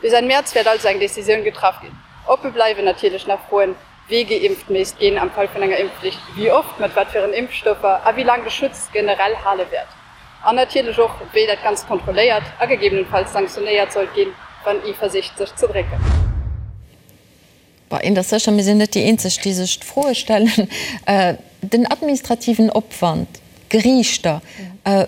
Bis Enn Mäerz wäert also eng Decisioun getraff ginn. Oppe bleiwen natierlech nach Froen, wee geimpft misst ginn am Fall vun enger Impfflicht, wéi oft, mat wat fir en Impfstoffer a wéi laang de Schutz generell hale wäert. An natierlech och, wéi dat Ganzt kontrolléiert a gegebenenfalls sanktionéiert sollt ginn, wann ee versicht sech ze drécken. Bon, eent ass sécher, mir sinn net déi eenzeg, déi sech d'Froe stellen. Den administrativen Opwand, d'Geriichter,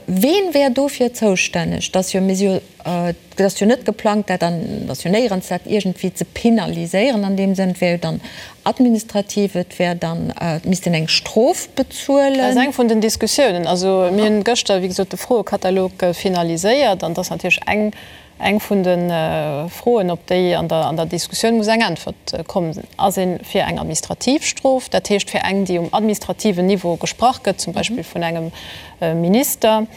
ween wär dofir zoustänneg? Et ass jo, mir si jo, et ass jo net geplangt, dat an, et ass jo néierens dat iergendwéi ze penaliséieren an deem Sënn. Et wär jo dann administrativ, et wär dann, et misst een eng Strof bezuelen. Dat ass eng vun den Diskussiounen. Also mir hunn gëschter, wéi gesot, de Froekatalog finaliséiert an et ass natierlech eng Eng vun de Froen, op déi an der Diskussioun muss eng Äntwert kommen, Ass ee fir eng administrativ Strof, dat heescht fir eng, déi um administrativen Niveau gesprach gëtt, zum Beispill vun engem Minister,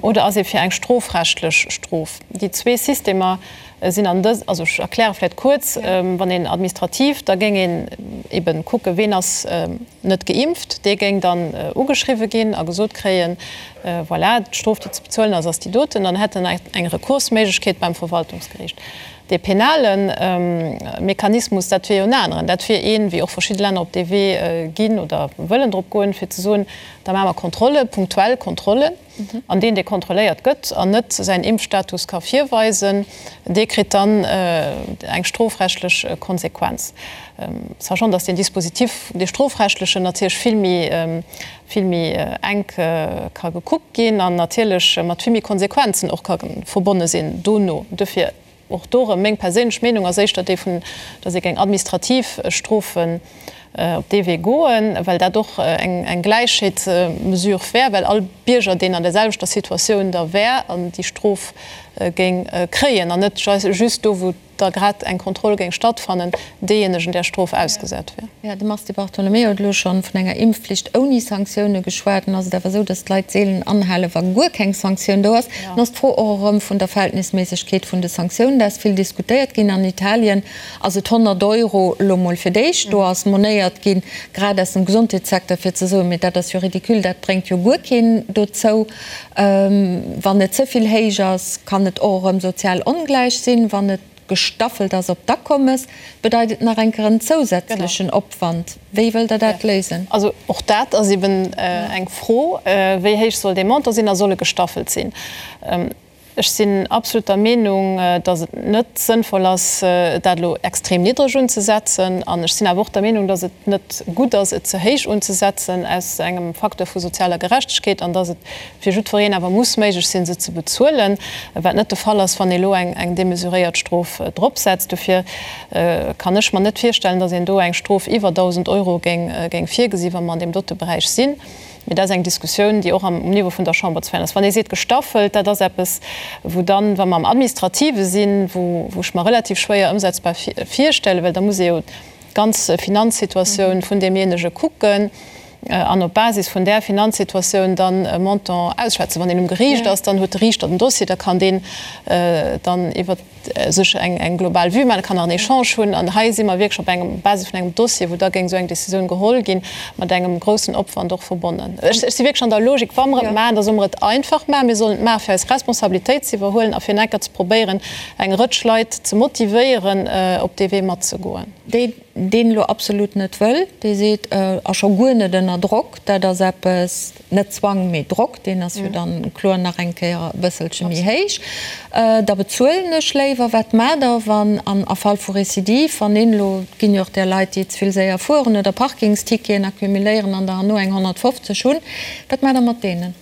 oder ass ee fir eng strofrechtlech Strof? Déi zwee Systemer sinn an dës, also ech erkläre vläicht kuerz, Wann een administrativ, da géing een ebe kucken, ween ass net geimpft, dee géing dann ugeschriwwe ginn a gesot kréien, voilà, d'Strof, déi ze bezuelen ass, ass déi doten. Dann hätt en eng Rekursméiglechkeet beim Verwaltungsgeriicht. Dee penale Mechanismus, dat wier jo en aneren. Dat wier een, wéi och verschidde Länner op dee Wee ginn oder wëllen drop goen, fir ze soen, da maache mer Kontrolle, punktuell Kontrollen. An deen, dee kontrolléiert gëtt an net säin Impfstatus ka virweisen, dee kritt dann eng strofrechtlech Konsequenz. Sachant, datt deen Dispositif, dee strofrechtlechen, natierlech vill méi, vill méi enk ka gekuckt ginn an natierlech mat vill méi Konsequenzen och ka verbonne sinn dono. Dofir Och do erëm, meng perséinlech Meenung ass éischter déi vun, datt ee géing administrativ Strofen op dee Wee goen, well dat och eng Gläichheetsmesure wär, well all Bierger, deen an der selwechter Situatioun da wär an déi Strof géing kréien, an net just do, wou da grad eng Kontroll géing stattfannen, deejéinegen där Strof ausgesat wär. Jo, de Mars Di Bartolomeo huet elo scho vun enger Impfflicht ouni Sanktioune geschwat. Nun ass et awer esou, datt d'Leit seelen anhalen, wa guer keng Sanktioun do ass. Dann ass d'Fro och erëm vun der Verhältnisméissegkeet vun de Sanktiounen. Dat ass vill diskutéiert ginn. An Italien ass et 100 Euro elo mol fir d'éischt. Do ass monéiert ginn, grad aus dem Gesondheetssecteur, fir ze soen, mee dat ass jo ridicule, dat bréngt jo guer keen dozou. Wann et ze vill héich ass, kann et och erëm sozial ongläich sinn. Wann et gestaffelt ass op d'Akommes, bedeit et nach eng Kéier en zousätzlechen Opwand. Wéi wëllt Der dat léisen? Also och dat ass eben eng Fro, Wéi héich soll dee Montant sinn a soll e gestaffelt sinn? Ech sinn absolut der Meenung, datt et net sënnvoll ass, dat elo extrem niddreg unzesetzen. An ech sinn awer och der Meenung, datt et net gutt ass, et ze héich unzesetzen aus engem Facteur vu sozialer Gerechtegkeet an datt et fir jiddwereen awer muss méiglech sinn, se ze bezuelen, wat net de Fall ass, wann ee elo eng demesuréiert Strof dropsetzt. Dofir kann ech mer net virstellen, datt een do eng Strof iwwer 1.000 Euro géing virgesi wa mer an deem dote Beräich sinn. Mee dat ass eng Diskussioun, déi och am Niveau vun der Chamber ze féieren ass. Wann ee seet gestaffelt, dat ass eppes, wou dann, wa mer am Administrative sinn, wou ech mer relativ schwéier ëmsetzbar virstellen, well da muss ee jo d'ganz Finanzsituatioun vun deemjéinege kucken an op Basis vun där Finanzsituatioun dann e Montant ausschwätzen. Wann een um Geriicht ass, dann huet de Riichter den Dossier, da kann deen dann iwwert sech eng global Vue maachen, kann nach en Echange hunn. An hei si mer wierklech op engem Basis vun engem Dossier, wou da géing esou eng Décisioun geholl ginn, mat engem groussen Opwand och verbonnen. Ech si wierklech an der Logik, wa mer et maachen, da solle mer et einfach maachen. Mir sollen et maachen, fir eis Responsabilitéit ze iwwerhuelen a fir en enker ze probéieren, eng Rëtsch Leit ze motivéieren, op dee Wee matzegoen. Déi deen elo absolut net wëll, dee seet, a scho guer net ënner Drock, dat ass eppes, net Zwang, mee Drock, deen ass jo dann kloer nach eng Kéier e bësselche méi héich, da bezuelen ech léiwer. Wat maacht Der, wann an a Fall vu Récidive, wann een elo, et ginn jo och där Leit, déi ze vill séier fueren oder Parkingsticketen accumuléieren an der herno eng 150 hunn, wat maacht Der mat deenen?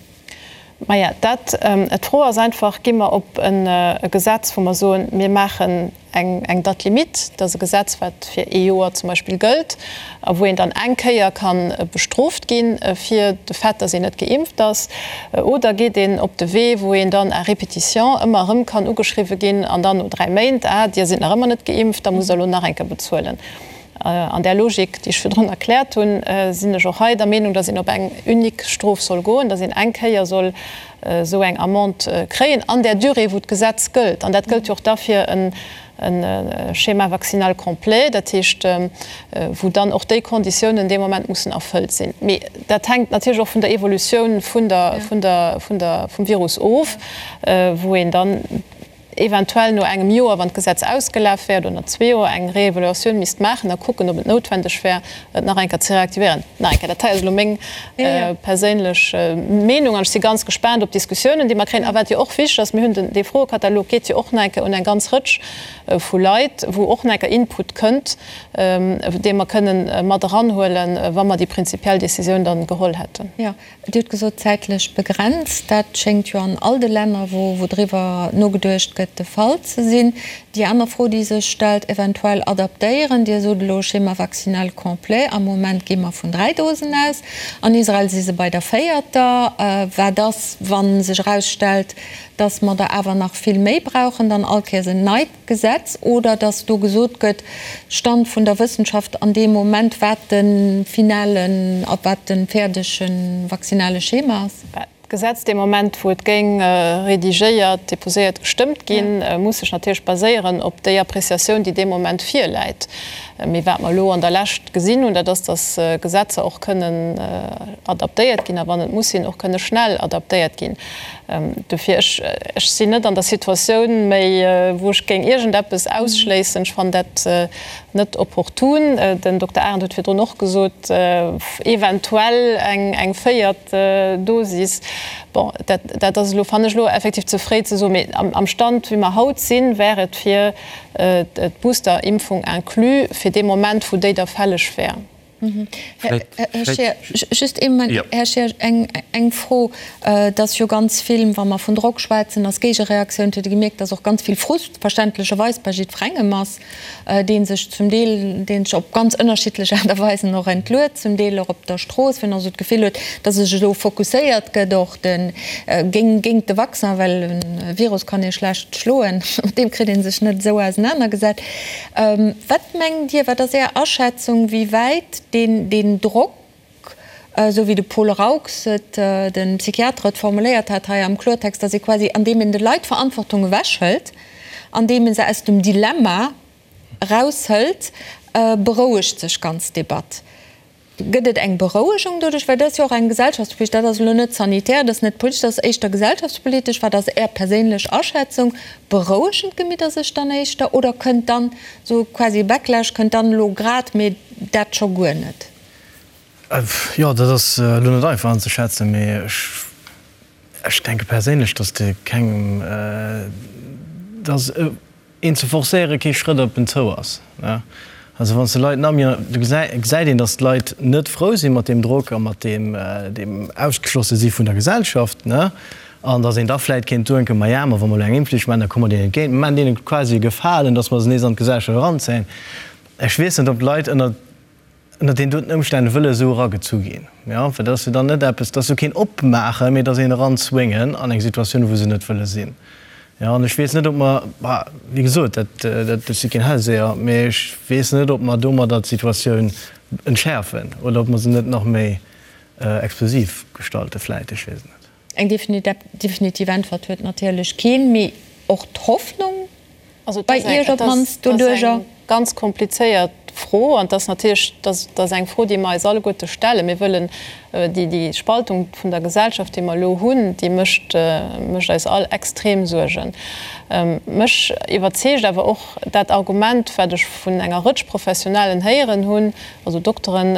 Maja, dat, d'Fro ass einfach, Gi mer op e Gesetz, wou mer soen, mir maachen eng Date limite, dat ass e Gesetz, wat fir ee Joer zum Beispill gëllt a wou een dann eng Kéier ka bestrooft gi fir de Fait, dass een net geimpft ass, oder geet een op de Wee, wou een dann à répétition ëmmer erëm kann ugeschriwwe ginn an dann no 3 Méint, Ah, Dir sidd nach ëmmer net geimpft, da musst Der elo nach eng Kéier bezuelen. An där Logik, déi ech virdrun erkläert hunn, sinn ech och hei der Meenung, dass een op eng unique Strof soll goen, dass een eng Kéier soll esou eng Amende kréien an där Durée, wou d'Gesetz gëllt. An dat gëllt jo och da fir e Schéma vaccinal complet, dat heescht, wou dann och déi Konditiounen dee Moment mussen erfëllt sinn. Mee dat hänkt natierlech och vun der Evolutioun vun der, vun der, vun der, vum Virus of, wou een dann, eventuell no engem Joer, wann d'Gesetz ausgelaf wär, oder no zwee Joer eng Réévaluatioun misst maachen a kucken, ob et noutwendeg wär, et nach eng Kéier ze reaktivéieren. Nach eng Kéier, dat hei ass elo meng perséinlech Meenung an ech si ganz gespaant op d'Diskussiounen, déi mer kréien. A wat jo och wichteg ass, mir hunn den, dee Froekatalog geet jo och nach eng Kéier un eng ganz Rëtsch vu Leit, wou och nach eng Kéier Input kënnt, dee mer kënnen mat eranhuelen, wa mer déi prinzipiell Décisioun dann geholl hätten. Dir hutt gesot, zäitlech begrenzt. Dat schéngt jo an all de Länner, wou driwwer nogeduecht gëtt, de Fall ze sinn. Déi aner Fro, déi sech stellt, eventuell adaptéieren. Dir sot elo Schéma vaccinal complet. Am Moment gi mer vun 3 Dosen aus. An Israel si se bei der véierter. Wat ass, wa sech erausstellt, datt mer der awer nach vill méi brauchen, dann all Kéiers en neit Gesetz oder dass do gesot gëtt, Stand vun der Wëssenschaft an deem Moment, wat de finalen a wat de fäerdege vaccinale Schema ass? D'Gesetz dee Moment, wou et géing redigéiert, déposéiert, gestëmmt ginn, muss sech natierlech baséieren op déi Appréciatioun, déi dee Moment virläit. Mee wat mer elo an der Lescht gesinn hunn, dat ass, dass Gesetzer och kënnen adaptéiert ginn a wann et muss sinn, och kënne schnell adaptéiert ginn. Dofir, ech, ech sinn net an der Situatioun méi, wou ech géing iergendeppes ausschléissen. Ech fannen dat net opportun. Den Dokter Arendt huet virdrun och gesot, eventuell eng, eng véiert Dosis. Bon, dat, dat ass elo, fannen ech elo effektiv ze fréi ze soen. Mee am, am Stand, wéi mer haut sinn, wär et fir d'Boosterimpfung inclus, fir dee Moment, wou déi da fälleg wär. Här Scheer, just ee Moment. Här Scheer, eng Fro. Et ass jo ganz vill, wa mer vun Drock schwätzen, ass Géigereaktioun. Et huet ee gemierkt, datt och ganz vill Frust verständlecherweis bei jiddwerengem ass, dee sech zum Deel, dee sech op ganz ënnerschiddlech Aart a Weisen och entluet, zum Deel och op der Strooss, wien och esou d'Gefill huet, datt sech elo fokusséiert gëtt och de géint de Vaccin, well e Virus kann ee schlecht schloen, mat deem kritt ee sech net esou ausenanergesat. Wat mengt Dir, wat ass Är Aschätzung, wéi wäit deen Drock, esou wéi de Paul Raux et, de Psychiater, et formuléiert hat hei am Kloertext, datt ee quasi, andeem een de Leit d'Verantwortung ewechhëlt, andeem ee se aus dem Dilemma eraushëlt, berouegt sech ganz d'Debatt. Gëtt et eng Berouegung doduerch? Well dat ass jo och eng gesellschaftspolitesch, dat ass elo net sanitär, dat ass net politesch, dat ass éischter gesellschaftspolitesch. Wat ass Är perséinlech Aschätzung? Berouegen d'Gemidder sech dann éischter oder kënnt dann esou quasi e Backlash, kënnt dann elo grad, mee dat scho guer net? Jo, dat ass elo net einfach anzeschätzen, mee ech. Ech denke perséinlech, datt de kengem, datt een ze forcéiere kee Schrëtt op en zou ass. Also wann s de Leit nach méi, do gesäit een, datt d'Leit net frou si mat deem Drock a mat deem ausgeschlosse si vun der Gesellschaft, an datt een da vläit kéint denken, maja, ma wa mer elo eng Impfflicht maachen, da komme mer deenen entgéint, mer maachen deene quasi e Gefalen, datt mer se nees an d'Gesellschaft eranzéien. Ech weess net, ob d'Leit ënner ënner deenen doten Ëmstänn wëlle esou eragezu ginn, jo, well dat ass jo dann net eppes, dat ass jo keen Opmaachen, mee et ass een Eranzwéngen an eng Situatioun, wou se net wëlle sinn, jo. An ech weess net, ob mer, bah, wéi gesot, dat, dat, ech si keen Hellseher, mee ech weess net, ob mer domadder d'Situatioun entschäerfen oder ob mer se net nach méi explosiv gestalte vläit, ech weess et net. Eng definitiv Äntwert huet natierlech keen, mee och d'Hoffnung bei Iech op d'mannst doduerjer? Dat ass eng ganz komplizéiert Fro an et ass natierlech, dat ass eng Fro, déi mer eis alleguerte stellen. Mir wëllen déi Spaltung vun der Gesellschaft, déi mer elo hunn, déi mécht mécht eis all extrem Suergen. Mech iwwerzeegt awer och dat Argument, wat ech vun enger Rëtsch Professionellen héieren hunn, also Dokteren,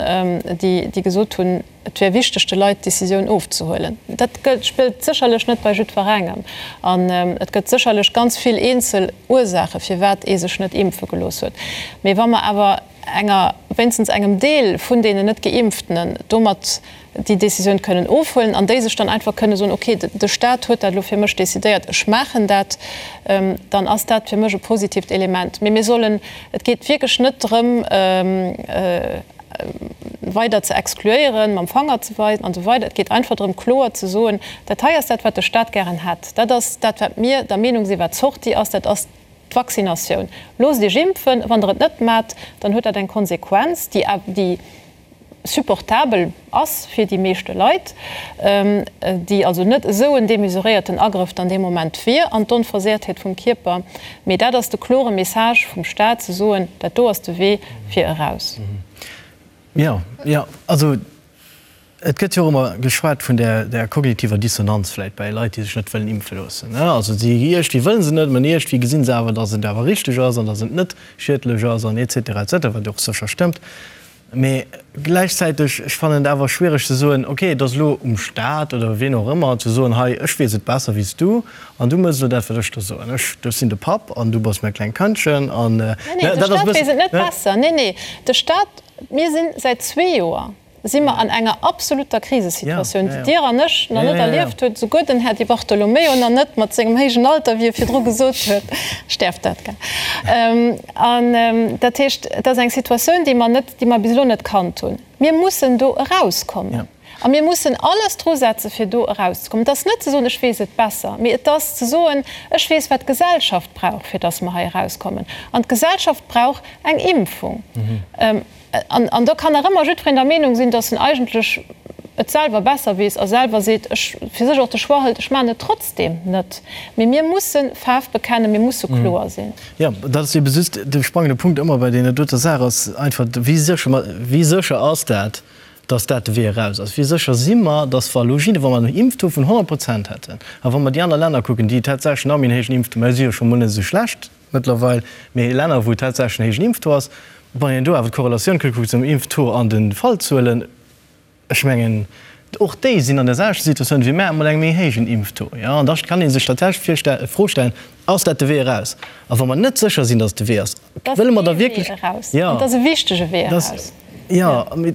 déi gesot hunn, Et wär wichteg, de Leit d'Decisioun ofzehuelen. Dat gëllt, spillt sécherlech net bei jiddwerengem. An et gëtt sécherlech ganz vill eenzel Ursaache firwat ee sech net impfe gelooss huet. Mee wa mer awer enger, wéinstens engem Deel vun deenen net Geimpftenen domat déi Decisioun kënnen ofhuelen an déi sech dann einfach kënne soen, okay, de Stat huet dat elo fir mech decidéiert, ech maachen dat, dann ass dat fir mech e positiivt Element. Mee mir sollen, et geet wierklech net drëm, weider ze exkluéieren, mam Fanger ze weisen an esou weider. Et geet einfach drëm, kloer ze soen, Dat hei ass dat, wat de Stat gären hätt. Dat ass dat, wat mir der Meenung sinn, wat d'Sortie ass. Dat ass d'Vaccinatioun. Loosst Iech impfen. Wann Der et net maacht, dann huet dat eng Konsequenz, déi, déi supportabel ass fir déi meeschte Leit, déi also net esou en demesuréierten Agrëff dann dee Moment wier an d'Onversehrtheet vum Kierper. Mee dat ass de klore Message vum Stat, ze soen, Dat do ass de Wee fir eraus. Jo, jo, also et gëtt jo och ëmmer geschwat vun där kognitiver Dissonanz vläicht bei Leit, déi sech net wëllen impfe loossen. Also si iergendwéi wëlle se net, mä iergendwéi gesi se awer, datt et awer richteg ass an datt et net schiedlech ass an et cetera, et cetera, wat jo och sécher stëmmt. Mee gläichzäiteg, ech fannen et awer schwiereg ze soen, ok, et ass elo um Staat oder wien och ëmmer ze soen, hei, ech weess et besser wéi s du an du mëss elo dat, wat ech der soen. Ech, ech sinn de Papp an du bass mäi klengt Këndchen an, Nee, nee, de Staat weess et net besser. Nee, nee, de Staat, mir sinn säit zwee Joer si mer an enger absoluter Krisesituatioun, déi Dir an ech nach net erlieft hutt, souguer den Här Di Bartolomeo nach net, mat sengem héijen Alter, wéi e virdru gesot huet. Ech däerf dat, gell? An dat heescht, et ass eng Situatioun, déi mer net, déi mer bis elo net kannt hunn. Mir mussen do erauskommen a mir mussen alles drusetze fir do erauszekommen. Et ass net ze soen, ech weess et besser, mee et ass ze soen, ech weess, wat d'Gesellschaft brauch, fir datt mer hei erauskommen. An d'Gesellschaft brauch eng Impfung. An do kann nach ëmmer jiddwereen der Meenung sinn, datt en eigentlech et selwer besser weess a selwer seet, ech, fir sech och de Choix hëlt, ech maachen et trotzdeem net. Mee mir musse Faarf bekennen, mir musse kloer sinn. Jo, dat ass ebe just de spannende Punkt ëmmer bei deene doter Saach ass einfach, wéi sécher mer, wéi sécher ass dat, datt dat de Wee eraus ass? Wéi sécher si mer, datt wa elo jidde, wa mer en Impftaux vun 100 Prozent hätten a wa mer déi aner Länner kucken, déi tatsächlech nach méi en héijen Impftaux, mä si jo scho mol net esou schlecht, Mëttlerweil, mee Länner wou tatsächlech en héijen Impftaux ass, wann een do awer d'Korrelatioun kuckt zum Impftaux an de Fallzuelen, ech mengen och déi sinn an der selwechter Situatioun wéi mär, mat engem méi héijen Impftaux, jo. An da kann ee sech tatsächlech d'Fro stellen, Ass dat de Wee eraus? A wa mer net sécher sinn, datt et de Wee ass, wëlle mer da wierklech. Dat ass ee Wee eraus, an et ass e wichtege Wee eraus. Jo, mee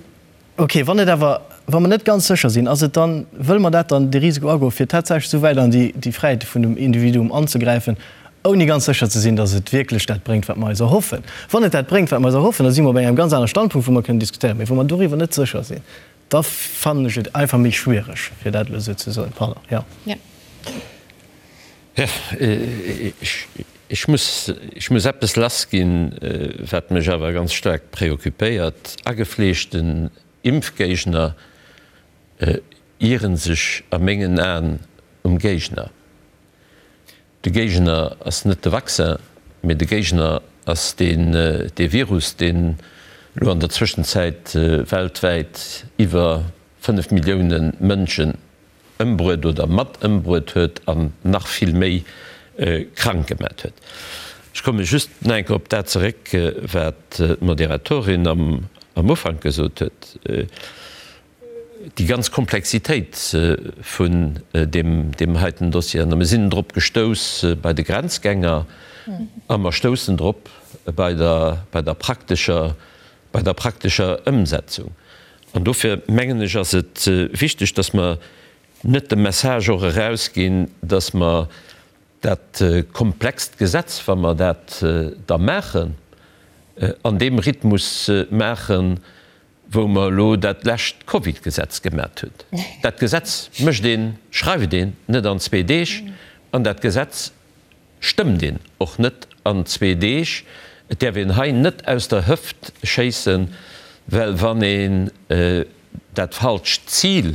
Ok, wann et awer, wa mer net ganz sécher sinn, ass et dann, wëlle mer dat dann, de Risiko agoen, fir tatsächlech esou wäit an déi, déi Fräiheete vun dem Individuum anzegräifen, ouni ganz sécher ze sinn, datt et wierklech dat bréngt, wat mer eis erhoffen? Wann et dat bréngt, wat mer eis erhoffen, da si mer op engem ganz anere Standpunkt, wou mer kënnen diskutéieren. Mee wa mer doriwwer net sécher sinn, da fannen ech et einfach méi schwiereg, fir dat elo esou ze soen. Pardon, jo. Jo, ech muss, ech muss eppes lassginn, wat mech awer ganz staark preoccupéiert. Agefleeschten Impfgéigner ieren sech a mengen Aen um Géigner. De Géigner ass net de Vaccin, mee de Géigner ass deen, dee Virus, deen elo an der Zwëschenzäit weltwäit iwwer 5 Millioune Mënschen ëmbruet oder mat ëmbruet huet an nach vill méi krank gemat huet. Ech komme just nach eng Kéier op dat zeréck, wat d'Moderatorin am Ufank gesot huet. déi ganz Komplexitéit vun deem heiten Dossier. A mir sinn drop gestouss bei de Grenzgänger a mer stoussen drop bei der, bei der praktescher, bei der praktescher Ëmsetzung. An dofir mengen ech, ass et wichteg, dass mer net de Message och erausginn, dass mer dat komplext Gesetz, wa mer dat da maachen, an deem Rhythmus maachen, wou mer elo dat lescht Covid-Gesetz gemat hunn. Dat Gesetz mécht een, schreift een net an zwee Deeg an dat Gesetz stëmmt een och net an zwee Deeg. Et däerf een hei net aus der Hëft schéissen, well wann een dat falscht Zil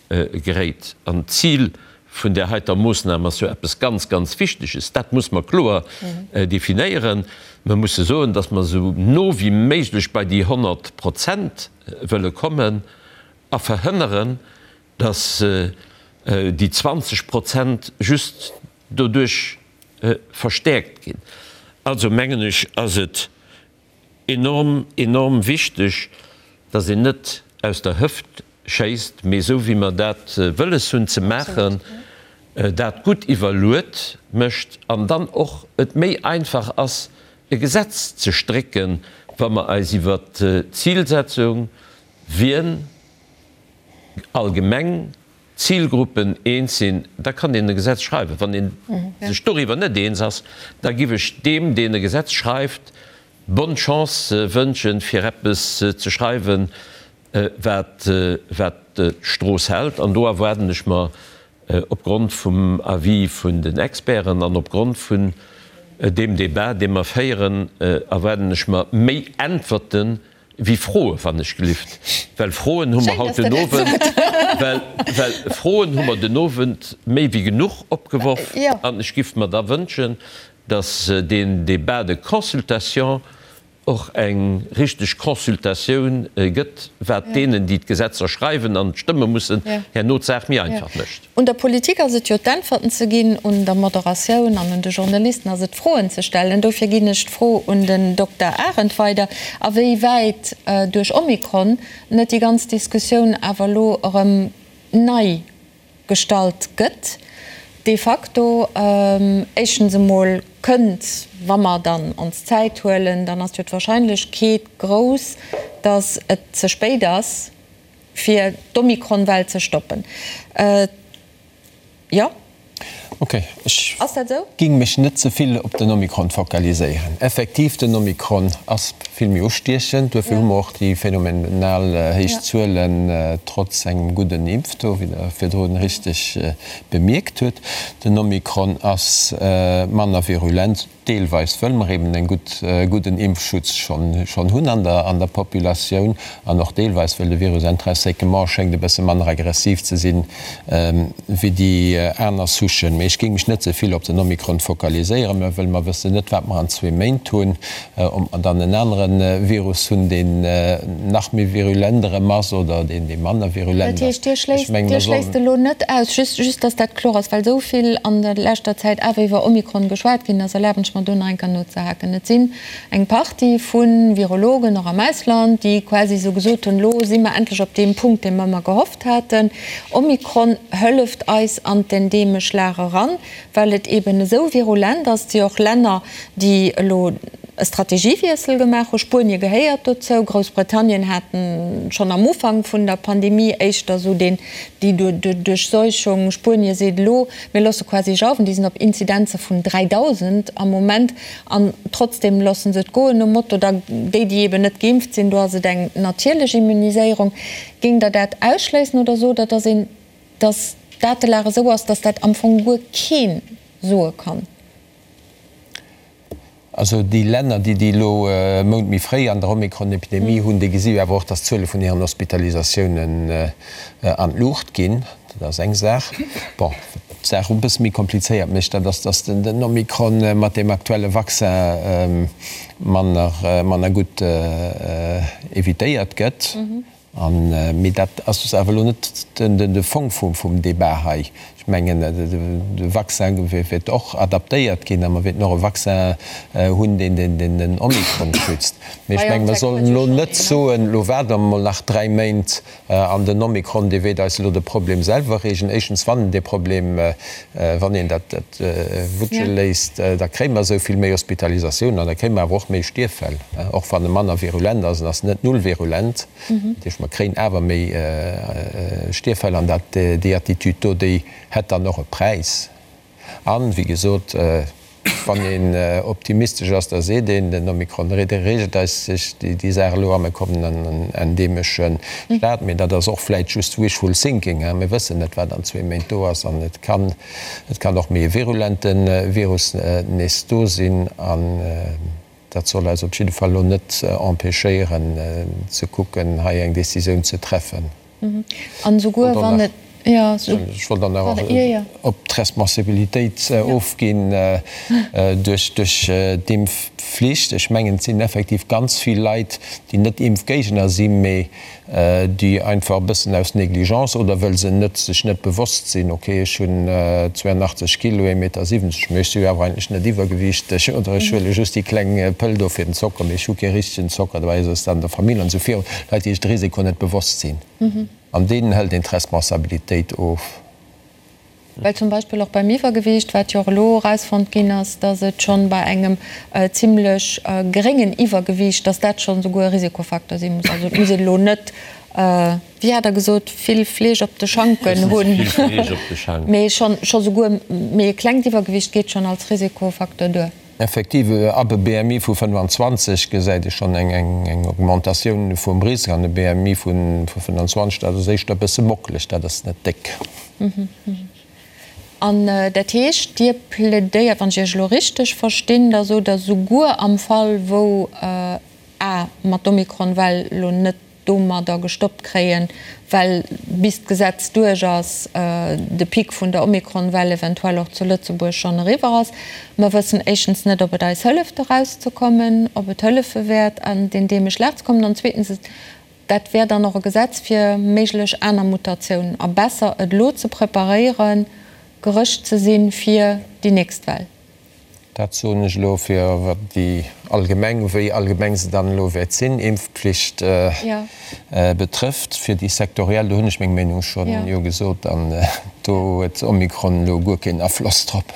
geréit. An d'Zil vun där heiter Moossnam ass jo eppes ganz, ganz Wichteges. Dat muss mer kloer definéieren. Mer musse soen, dass mer esou no wéi méiglech bei déi 100 Prozent wëlle kommen a verhënneren, dass déi 20 Prozent just doduerch verstäerkt ginn. Also mengen ech, ass et Enorm, enorm wichteg, dass een net aus der Hëft schéisst, mee esou wéi mer dat wëlles hunn ze maachen, dat gutt iwwerluet mécht an dann och et méi einfach ass e Gesetz ze strécken, wa mer eis iwwert d'Zilsetzung, wien allgemeng Zilgruppen eens sinn, da kann een e Gesetz schreiwen. Wann ee sech doriwwer net eens ass, da giff ech deem, deen e Gesetz schreift, bonne chance wënschen, fir eppes ze schreiwen, wat d'Strooss hält. An do erwaarden ech mer opgrond vum Avis vun den Experten an opgrond vun deem Débat, dee mer féieren, erwaarden ech mer méi Äntwerten, Wéi Froe wann ech gelift, well Froen hu mer haut den Owend, well, well Froen hu mer den Owend méi wéi genuch opgeworf. An ech giff mer da wënschen, datt deen Débat de consultation och eng richteg Consultatioun gëtt, wat deenen, déi d'Gesetzer schreiwen an stëmme mussen, herno d'Saach méi einfach mécht. Un der Politik ass et jo d'Äntwerten ze ginn, un der Moderatioun an un de Journalisten ass et d'Froen ze stellen. Dofir ginn ech d'Fro un den Dokter Arendt weider, a wéi wäit duerch Omikron net déi ganz Diskussioun awer elo erëm nei gestallt gëtt de facto. Éischtens emol kënnt, wa mer dann ons Zäit huelen, dann ass jo d'Wahrscheinlechkeet grouss, datt et ze spéit ass, Fir d'Omikron-Well ze stoppen. Jo. Ok, ech géing mech net ze vill op den Omikron fokaliséieren. Effektiv, den Omikron ass vill méi ustiechend, duerfir hu mer och déi phänomenal héich Zuelen, trotz engem gudden Impftaux, wéi Der virdrun richteg bemierkt hutt. Den Omikron ass manner virulent. Deelweis wëll mer eben en gutt, gudden Impfschutz schonn, schonn hunn an der, an der Populatioun an och deelweis wëll de Virus intrinsèquement schéngt e bësse manner aggressiv ze sinn wéi déi aner Souchen. Mee ech géing mech net ze vill op den Omikron fokaliséieren, mä wëll mer wëssen net, wat mer an zwee Méint hunn, ob mer dann en anere Virus hunn, deen nach méi virulent erëm ass oder deen, dee manner virulent Dat heescht, Dir schléisst, Dir schléisst elo net aus, just, just dass dat kloer ass, well esou vill an der leschter Zäit awer iwwer Omikron geschwat ginn ass, erlaben ech mer do nach eng Kéier nozehaken. Et sinn eng Partie vu Virologen, och am Ausland, déi quasi esou gesot hunn, elo si mer endlech op deem Punkt, dee mer ëmmer gehofft haten, Omikron hëlleft eis an d'endeemesch Lag eran, well et eben esou virulent ass. Et si och Länner, déi elo e Strategiewiessel gemaach hu. Spuenie gehéiert dozou. Groussbritannien hat schonn am Ufank vun der Pandemie éischter esou deen, déi Duerchseuchung. Spuenie seet elo, mir loosse quasi jauwen. Déi sinn op Inzidenze vun 3.000 am Moment an trotzdeem loosse se et goen, nom Motto, da déi, déi eben net geimpft sinn, do ass et eng natierlech Immuniséierung. Géingt Der dat ausschléissen oder sot Der, dass een, dass d'Datelag esou ass, dass dat am Fong guer kee soe kann? Also déi Länner, déi déi elo e Mount méi fréi an der Omikron-Epidemie hunn, déi gesi jo awer och, datt d'Zuele vun hiren Hospitalisatiounen an d'Luucht ginn. Dat ass eng Saach. Bon, wat d'Saach e bësse méi komplizéiert mécht, dat ass, datt den Omikron mat deem aktuelle Vaccin manner, manner gutt evitéiert gëtt. An, mee dat ass awer elo net de Fong vum Débat hei. Ech mengen, de Vaccin wäert och adaptéiert ginn a mer wäerten och e Vaccin hunn, deen den Omikron schützt. Mee ech mengen, mer sollen elo net soen, elo waarde mer emol nach dräi Méint an den Omikron, dee wäert eis elo de Problem selwer reegelen. Éischtens, wann en dee Problem, wann een dat wutsche léisst, da kréie mer esou vill méi Hospitalisatiounen an da kréie mer awer och méi Stierffäll, och wann e manner virulent ass. En ass net null virulent. Dat heescht, mer kréien awer méi Stierffäll an dat, déi Attitude do, déi hätt dann och e Präis. An, wéi gesot, wann een optimistesch ass, da seet een, den Omikron reegelt eis sech déi Saach elo a mir kommen an en endemesche Staat. Mee dat ass och vläicht just wishful thinking. Mir wëssen net, wat an zwee Méint do ass an et kann, et kann och méi e virulente Virus nees do sinn. An Dat soll eis op jidde Fall elo net empêchéieren ze kucken, hei eng Décisioun ze treffen. An esouguer wann et, jo. Ech wollt dann nach op d'Responsabilitéit ofginn duerch d'Impfflicht. Ech mengen, et sinn effektiv ganz vill Leit, déi net Impfgéigner sinn, mee déi einfach e bëssen aus Négligence oder wëll se net sech net bewosst sinn, ok ech hunn 82 Kilo, ee Meter 70, mee ech si jo awer eigentlech net iwwergewiichteg oder ech huele just déi kleng Pëll do fir den Zocker, mee ech hu kee richtegen Zocker, dobäi ass et an der Famill an esou virun, Leit déi sech de Risiko net bewosst sinn an deenen hëlt een d'Responsabilitéit of. Well zum Beispill och beim Iwwergewiicht, wat jo och elo erausfonnt ginn ass, dass et schonn bei engem zimlech geréngen Iwwergewiicht, dass dat schonn souguer e Risikofacteur si muss. Also et muss een elo net, wéi hat Der gesot, vill Fleesch op de Schanken hunn, mee schonn scho souguer méi e klengt Iwwergewiicht geet schonn als Risikofacteur duer. Effektiv, ab e BMI vu 25 gesäit ee schonn eng Augmentatioun vum Risk an e BMI vu 25, dat ass éischter e bësse mockeleg, dat ass net déck. An dat heescht, Dir plädéiert, wann ech Iech elo richteg verstinn, da sot Der, souguer am Fall wou a mer d'Omikron-Well elo net domadder gestoppt kréien, well bis d'Gesetz duerch ass, de Pic vun der Omikron-Well eventuell och zu Lëtzebuerg schonn eriwwer ass. Mer wëssen éischtens net, ob et eis hëlleft erauszekommen, ob et hëllefe wäert an d'endeemesch Lag ze kommen, an zweetens, dat wär dann och e Gesetz fir méiglech aner Mutatiounen a besser et elo ze preparéieren, gerëscht ze sinn fir déi nächst Well. Dat soen ech elo fir wat déi allgemeng, wéi allgemeng se dann elo wäert sinn, Impfpflicht betrëfft. Fir déi sektoriell, do hunn ech meng Meenung schonn jo gesot an do huet Omikron elo guer keen Afloss drop.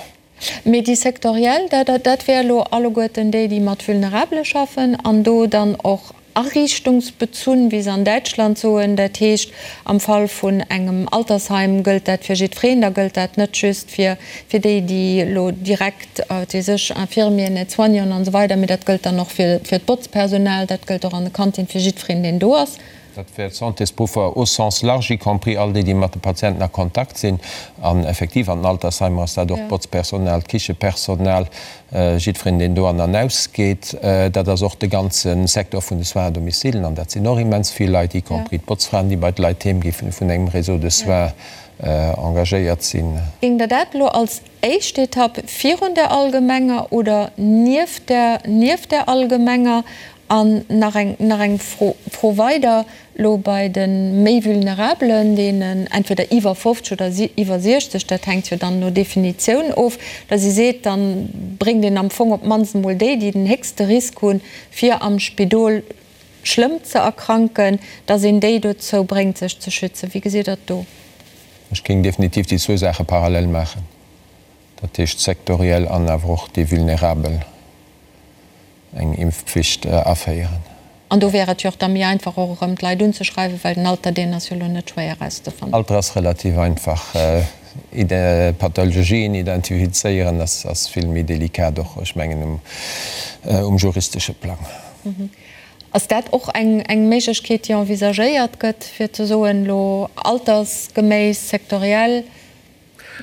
Mee déi sektoriell, dat wär elo alleguerten déi, déi mat Vulnerabele schaffen an do dann och Ariichtungsbezunn, wéi se an Däitschland soen. Dat heescht, am Fall vun engem Altersheim gëllt dat fir jiddwereen, da gëllt dat net just fir fir déi, déi elo direkt, wat weess ech, Infirmieren, Aide-soignanten an esou weider, mee dat gëllt dann och fir fir d'Botzpersonal, dat gëllt och an de Kantine fir jiddwereen, deen do ass. Dat wär d'Santésberuffer au sens large, y compris all déi, déi mat de Patienten a Kontakt sinn. An effektiv an den Altersheimer ass dat och d'Botzpersonal, d'Kichepersonal, Jiddwereen, deen do an an ausgeet, dat ass och de ganze Secteur vun de Soins à domicile, an dat sinn och immens vill Leit, y compris d'Botzfraen, déi bei de Leit heem gi vun engem Réseau de soins engagéiert sinn. Géingt Der dat elo als éischt Etapp virun der allgemenger oder nieft der, nieft der allgemenger An nach eng, nach eng Fro, Fro weider, elo bei de méi Vulnerabelen, deenen entweder iwwer 50 oder iwwer 60, dat hänkt jo dann no Definitioun of, datt ee seet, da bréngt een am Fong op d'mannst emol déi, déi den héchste Risk hunn, fir am Spidol schlëmm ze erkranken, datt een déi dozou bréngt, sech ze schützen. Wéi gesitt Der et do? Ech géing definitiv déi zwou Saache parallel maachen, dat heescht sektoriell an awer och déi Vulnerabel. eng Impfpflicht aféieren. An do wär et jo och da méi einfach och erëm d'Leit unzeschreiwen, well den Alter deen ass jo elo net schwéier erauszefannen. Alter ass relativ einfach. Pathologien identifizéieren ass vill méi delikat och, ech mengen um juristesche Plang. Ass dat och eng Méiglechkeet déi envisagéiert gëtt, fir ze soen, elo altersgeméiss, sektoriell?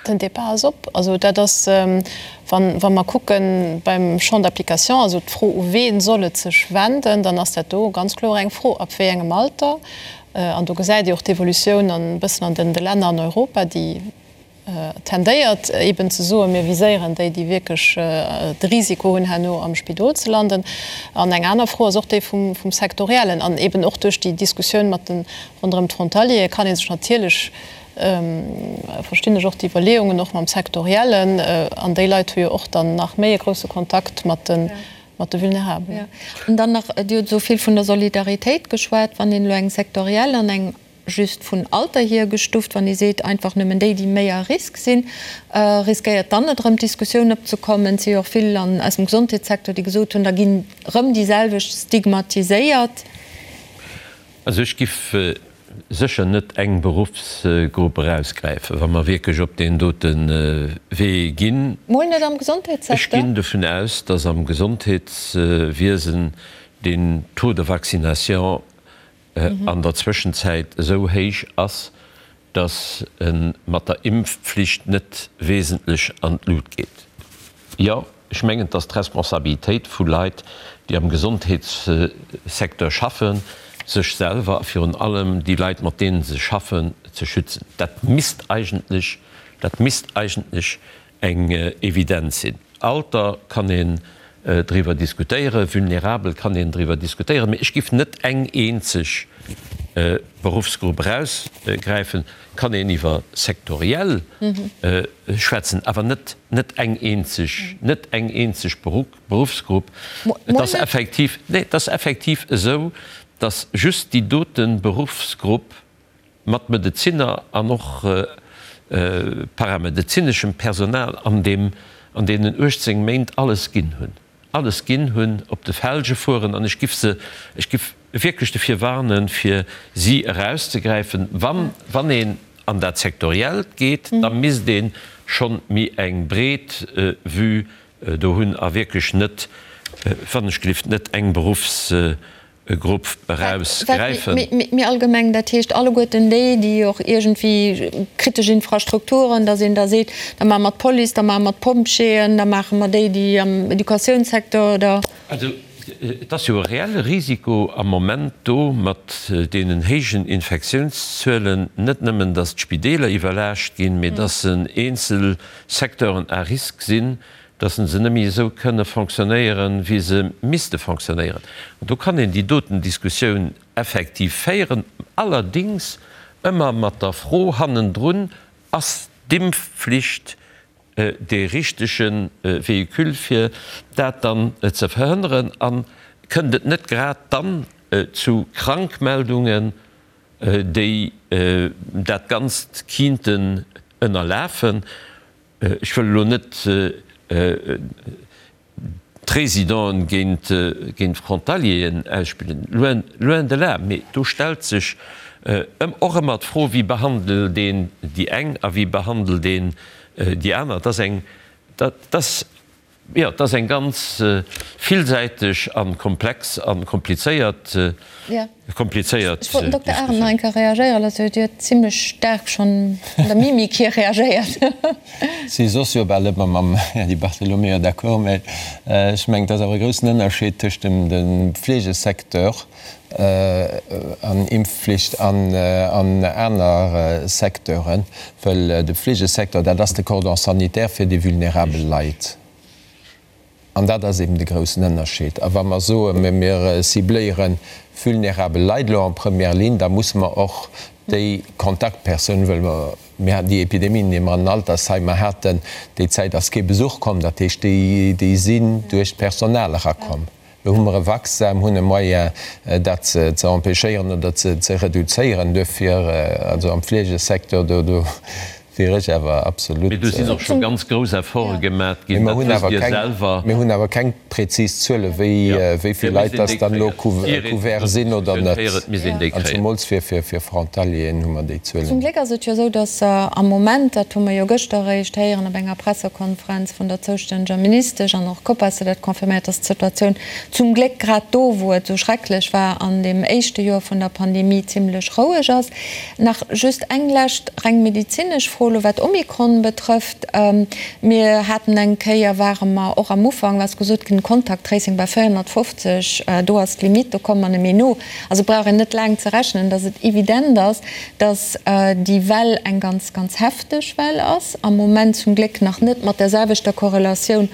Den Débat ass op. Also dat ass, wa mer kucke beim Champ d'application, also d'Fro, u ween soll et sech wenden, dann ass dat do ganz kloer eng Fro, ab wéi engem Alter. An do gesäit Dir och d'Evolutioun e bëssen an de Länner an Europa, déi. tendéiert eben ze soen, mir viséieren déi, déi wierklech de Risiko hunn, herno am Spidol ze landen. An eng aner Fro ass och déi vum Sektoriellen. An eben och duerch déi Diskussioun mat de ronderëm d'Frontaliere kann ee sech natierlech, verstinn ech och d'Iwwerleeungen och mam Sektoriellen, an déi Leit hu jo och dann nach méi e grousse Kontakt mat de mat de Vulnerabelen. An dann nach, Dir hutt esou vill vun der Solidaritéit geschwat, wann een elo eng sektoriell an eng just vun Alter hier gestuft, wann ee seet, einfach nëmmen déi, déi méi à risque sinn, riskéiert dann net erëm d'Diskussioun opzekommen? Et si jo och vill an aus dem Gesondheetssecteur, déi gesot hunn, da ginn erëm déi selwecht stigmatiséiert. Also ech giff sécher net eng Beruffsgrupp erausgräifen, wa mer wierklech op deen dote Wee ginn. Mol net am Gesondheetssecteur? Ech ginn dovun aus, dass am Gesondheetswiesen den Taux de vaccination an der Zwëschenzäit esou héich ass, dass e mat der Impfpflicht net wesentlech an d'Lut geet. Jo, ech mengen, et ass d'Responsabilitéit vu Leit, déi am Gesondheetssecteur schaffen, sech selwer a virun allem déi Leit, mat deene se schaffen, ze schützen. Dat misst eigentlech, dat misst eigentlech eng Evidenz sinn. Alter kann een driwwer diskutéieren, vulnerabel kann een driwwer diskutéieren, mee ech giff net eng eenzeg Beruffsgrupp erausgräifen. Kann een iwwer sektoriell schwätzen, awer net net eng eenzeg, net eng eenzeg Beruffsgrupp. Et ass effektiv, nee, et ass effektiv esou, datt just déi dote Beruffsgrupp, mat Medezinner an och paramedezineschem Personal an deem an deenen 18 Méint alles ginn hunn, alles ginn hunn, op de Felge fueren an ech giff se, ech giff wierklech dofir warnen, fir si erauszegräifen. Wann, wann een an dat Sektoriellt geet, da misst ee schonn méi eng breet Vue do hunn a wierklech net, wann ech gelift, net eng Beruffs Grupp eraus gräifen. Méi allgemeng, dat heescht alleguerten déi, déi och iergendwéi kritesch Infrastrukturen, datt een da seet, da maache mer d'Police, da maache mer d'Pompjeeën, da maache mer déi, déi am Educatiounssecteur oder. Also et ass jo e reelle Risiko am Moment do mat deenen héijen Infektiounszuelen, net nëmmen datt d'Spideeler iwwerlaascht ginn, mee datt eenzel Secteuren à risque sinn, dass se net méi esou kënne fonctionnéieren, wéi se misste fonctionnéieren. An do kann een déi doten Diskussioun effektiv féieren, allerdéngs ëmmer mat der Fro hannendrun, Ass d'Impfflicht dee richtege Véhicule, fir dat dann ze verhënneren? A kënnt et net grad dann zu Krankmeldungen, déi dat Ganzt kinnten ënnerlafen? Ech wëll elo net d'Résidenten géint d'Frontalieren ausspillen, loin, loin de là, mee do stellt sech och ëmmer d'Fro, wéi behandelt een déi eng a wéi behandelt een déi aner. Dat ass eng, dat ass Jo, et ass eng ganz villsäiteg a komplex a komplizéiert, komplizéiert Ech wollt den Dokter Arendt nach eng Kéier reagéiere loossen. Dir huet zimlech staark schonn an der Mimik hier reagéiert. Si soss jo bal ëmmer mam Här Di Bartolomeo d'accord, mä ech mengen, et ass awer e groussen Ënnerscheed tëscht dem Fleegesecteur an Impfflicht an aner Secteuren, well de Fleegesecteur, dat ass de Cordon sanitaire fir déi vulnerabel Leit. An dat ass eben de groussen Ënnerscheed. A wa mer soen, mir cibléiere vulnerabel Leit elo en première ligne, da musse mer och déi Kontaktpersounen, well mer, mir haten déi Epidemien, déi mer an den Altersheimer haten, déi Zäit ass kee Besuch komm, dat heescht, déi sinn duerch d'Personal erakomm. Lo hu mer e Vaccin, hunn e Moyen, dat ze empêchéieren oder ze reduzéieren. Duerfir, also am Fleegesecteur, do wier ech awer absolut. Mee do sinn och scho ganz grouss Efforte gemat ginn, dat wësst Dir selwer. Mir hunn awer keng prezis Zuele wéi vill Leit dass dann elo couvert sinn oder net. An zemools fir Frontalieren hu mer déi Zuelen net. Zum Gléck ass et jo esou, dass am Moment, dat hu mer jo gëschter eréischt héieren op enger Pressekonferenz vun der zoustänneger Ministesch an och d'Copas huet dat confirméiert, dass d'Situatioun zum Gléck grad do, wou et esou schrecklech war an deem éischte Joer vun der Pandemie, zimlech roueg ass. Nach just eng lescht reng medezinesch Fro. Fro elo wat Omikron betrëfft. Mir haten eng Kéier, ware mer och am Ufank, ass gesot ginn, Contact Tracing bei 450, do ass d'Limite, do komme mer net méi no. Also brauch een net laang ze rechnen, datt et evident ass, datt déi Well eng ganz, ganz hefteg Well ass, am Moment zum Gléck nach net mat där selwechter Korrelatioun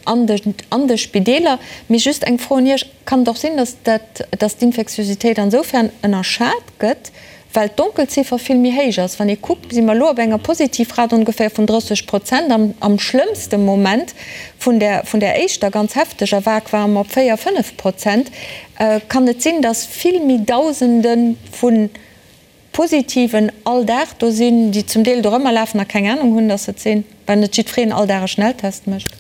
an de, an de Spideeler. Mee just eng Fro un Iech, Kann et och sinn, datt dat, datt d'Infektiositéit ansoufern ënnerschat gëtt, well d'Donkelziffer vill méi héich ass? Wann ee kuckt, si mer elo op enger Positivrate ongeféier vun 30 Prozent. Am, am schlëmmste Moment vun där, vun där éischter ganz hefteger Vague ware mer op 4, 5 Prozent. Kann et sinn, datt vill méi Dausende vu Positiven all Dag do sinn, déi zum Deel dorëmmer lafen a keng Anung hunn, datt se et sinn, well net jiddwereen all Dag e Schnelltest mécht?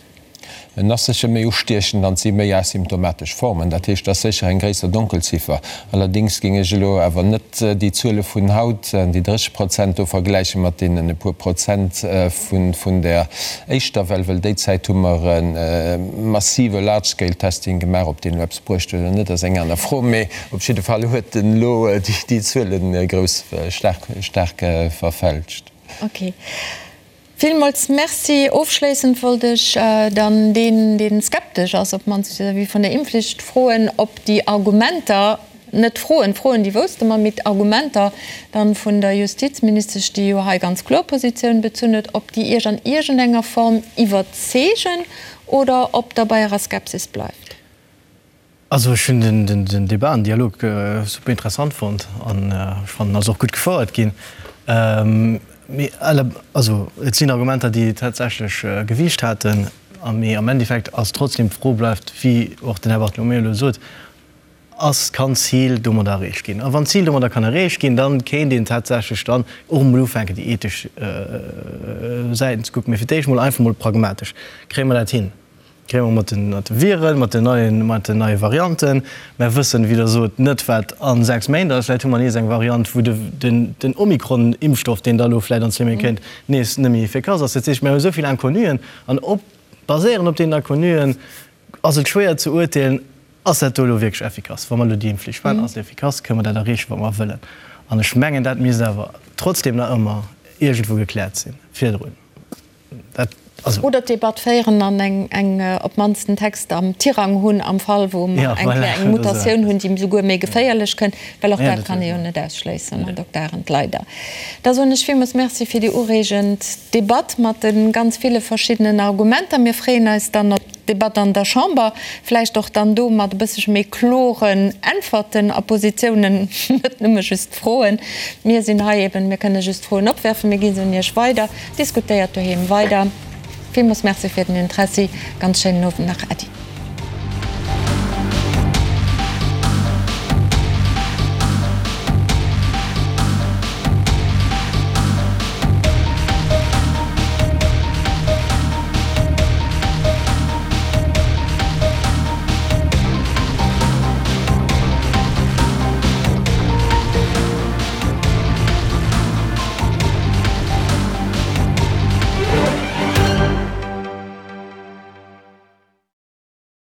En ass sécher méi ustiechend an et si méi asymptomatesch Formen. Dat heescht, et ass sécher eng gréisser Donkelziffer. Allerdéngs géing ech elo awer net déi Zuele vun haut, déi 30 Prozent do, vergläiche mat deenen e puer Prozent vun der éischter Well, well déi Zäit hu mer e massive Large-Scale-Testing gemaach. Ob deen elo eppes bruecht huet oder net, ass eng aner Fro. Mee op jidde Fall huet en elo déi Zuele grouss, staark, staark verfälscht. Okay. Villmools Merci. Ofschléissend wollt ech dann deen, dee skeptesch ass, op d'mannst vis-à-vis vun der Impfflicht, froen, ob déi Argumenter, net Froen, Froen, déi wousste mer, mee d'Argumenter dann vun der Justizministesch, déi jo hei ganz kloer Positioun bezunn huet, ob déi Iech an iergendenger Form iwwerzeegen oder ob Der bei Ärer Skepsis bleift. Also ech hunn den Debat an Dialog super interessant fonnt an ech fannen ass och gutt gefouert ginn. Mee also et sinn Argumenter déi tatsächlech Gewiicht haten a mee am Endeffekt ass trotzdem d'Fro bleift, wéi och den Här Bartolomeo elo sot, ass, kann d'Zil domadder erreecht ginn? A wann d'Zil domadder kann erreecht ginn, dann kéint een tatsächlech dann och emol ufänken déi ethesch Säiten ze kucken. Mee fir d'éischt mol einfach mol pragmatesch, kréie mer dat hin? Kréie mer mat de Viren, mat den neien, mat den neie Varianten. Mer wëssen, wéi Der sot, net, wat a 6 Méint ass. Vläicht hu mer nees eng Variant, wou de, den, den Omikron-Impfstoff, deen da elo vläicht an zwee Méint kéint, nees net méi effikass ass. Dat heescht, mer hu esou vill Inconnuen an op, baséierend op deenen Inconnuen ass et schwéier ze urteelen, Ass dat do elo wierklech effikass? Wa mer elo déi Impfflicht maachen, ass et effikass? Kënne mer dat erreechen, wat mer wëllen? An ech mengen, dat misst awer trotzdem nach ëmmer iergendwou gekläert sinn virdrun. Dat, also. Oder d'Debatt féieren an eng, eng, op d'mannst en Text am Tirang hunn, am Fall wou mer eng Kéier eng Mutatioun hunn, déi souguer méi geféierlech kënnt, well och dat kann ee jo net ausschléissen, Här Dokter Arendt, leider. Da soen ech villmools Merci fir déi ureegend Debatt mat de ganz ville verschiddenen Argumenter. Mir freeën eis dann op d'Debatt an der Chamber, vläicht och dann do mat e bëssche méi kloren Äntwerten a Positiounen, net nëmme just Froen. Mir sinn hei eben, mir kënne just Froen opwerfen, mir gi se un Iech weider. Diskutéiert doheem weider. Villmools Merci fir den Interessi. Ganz schéinen Owend nach. Äddi.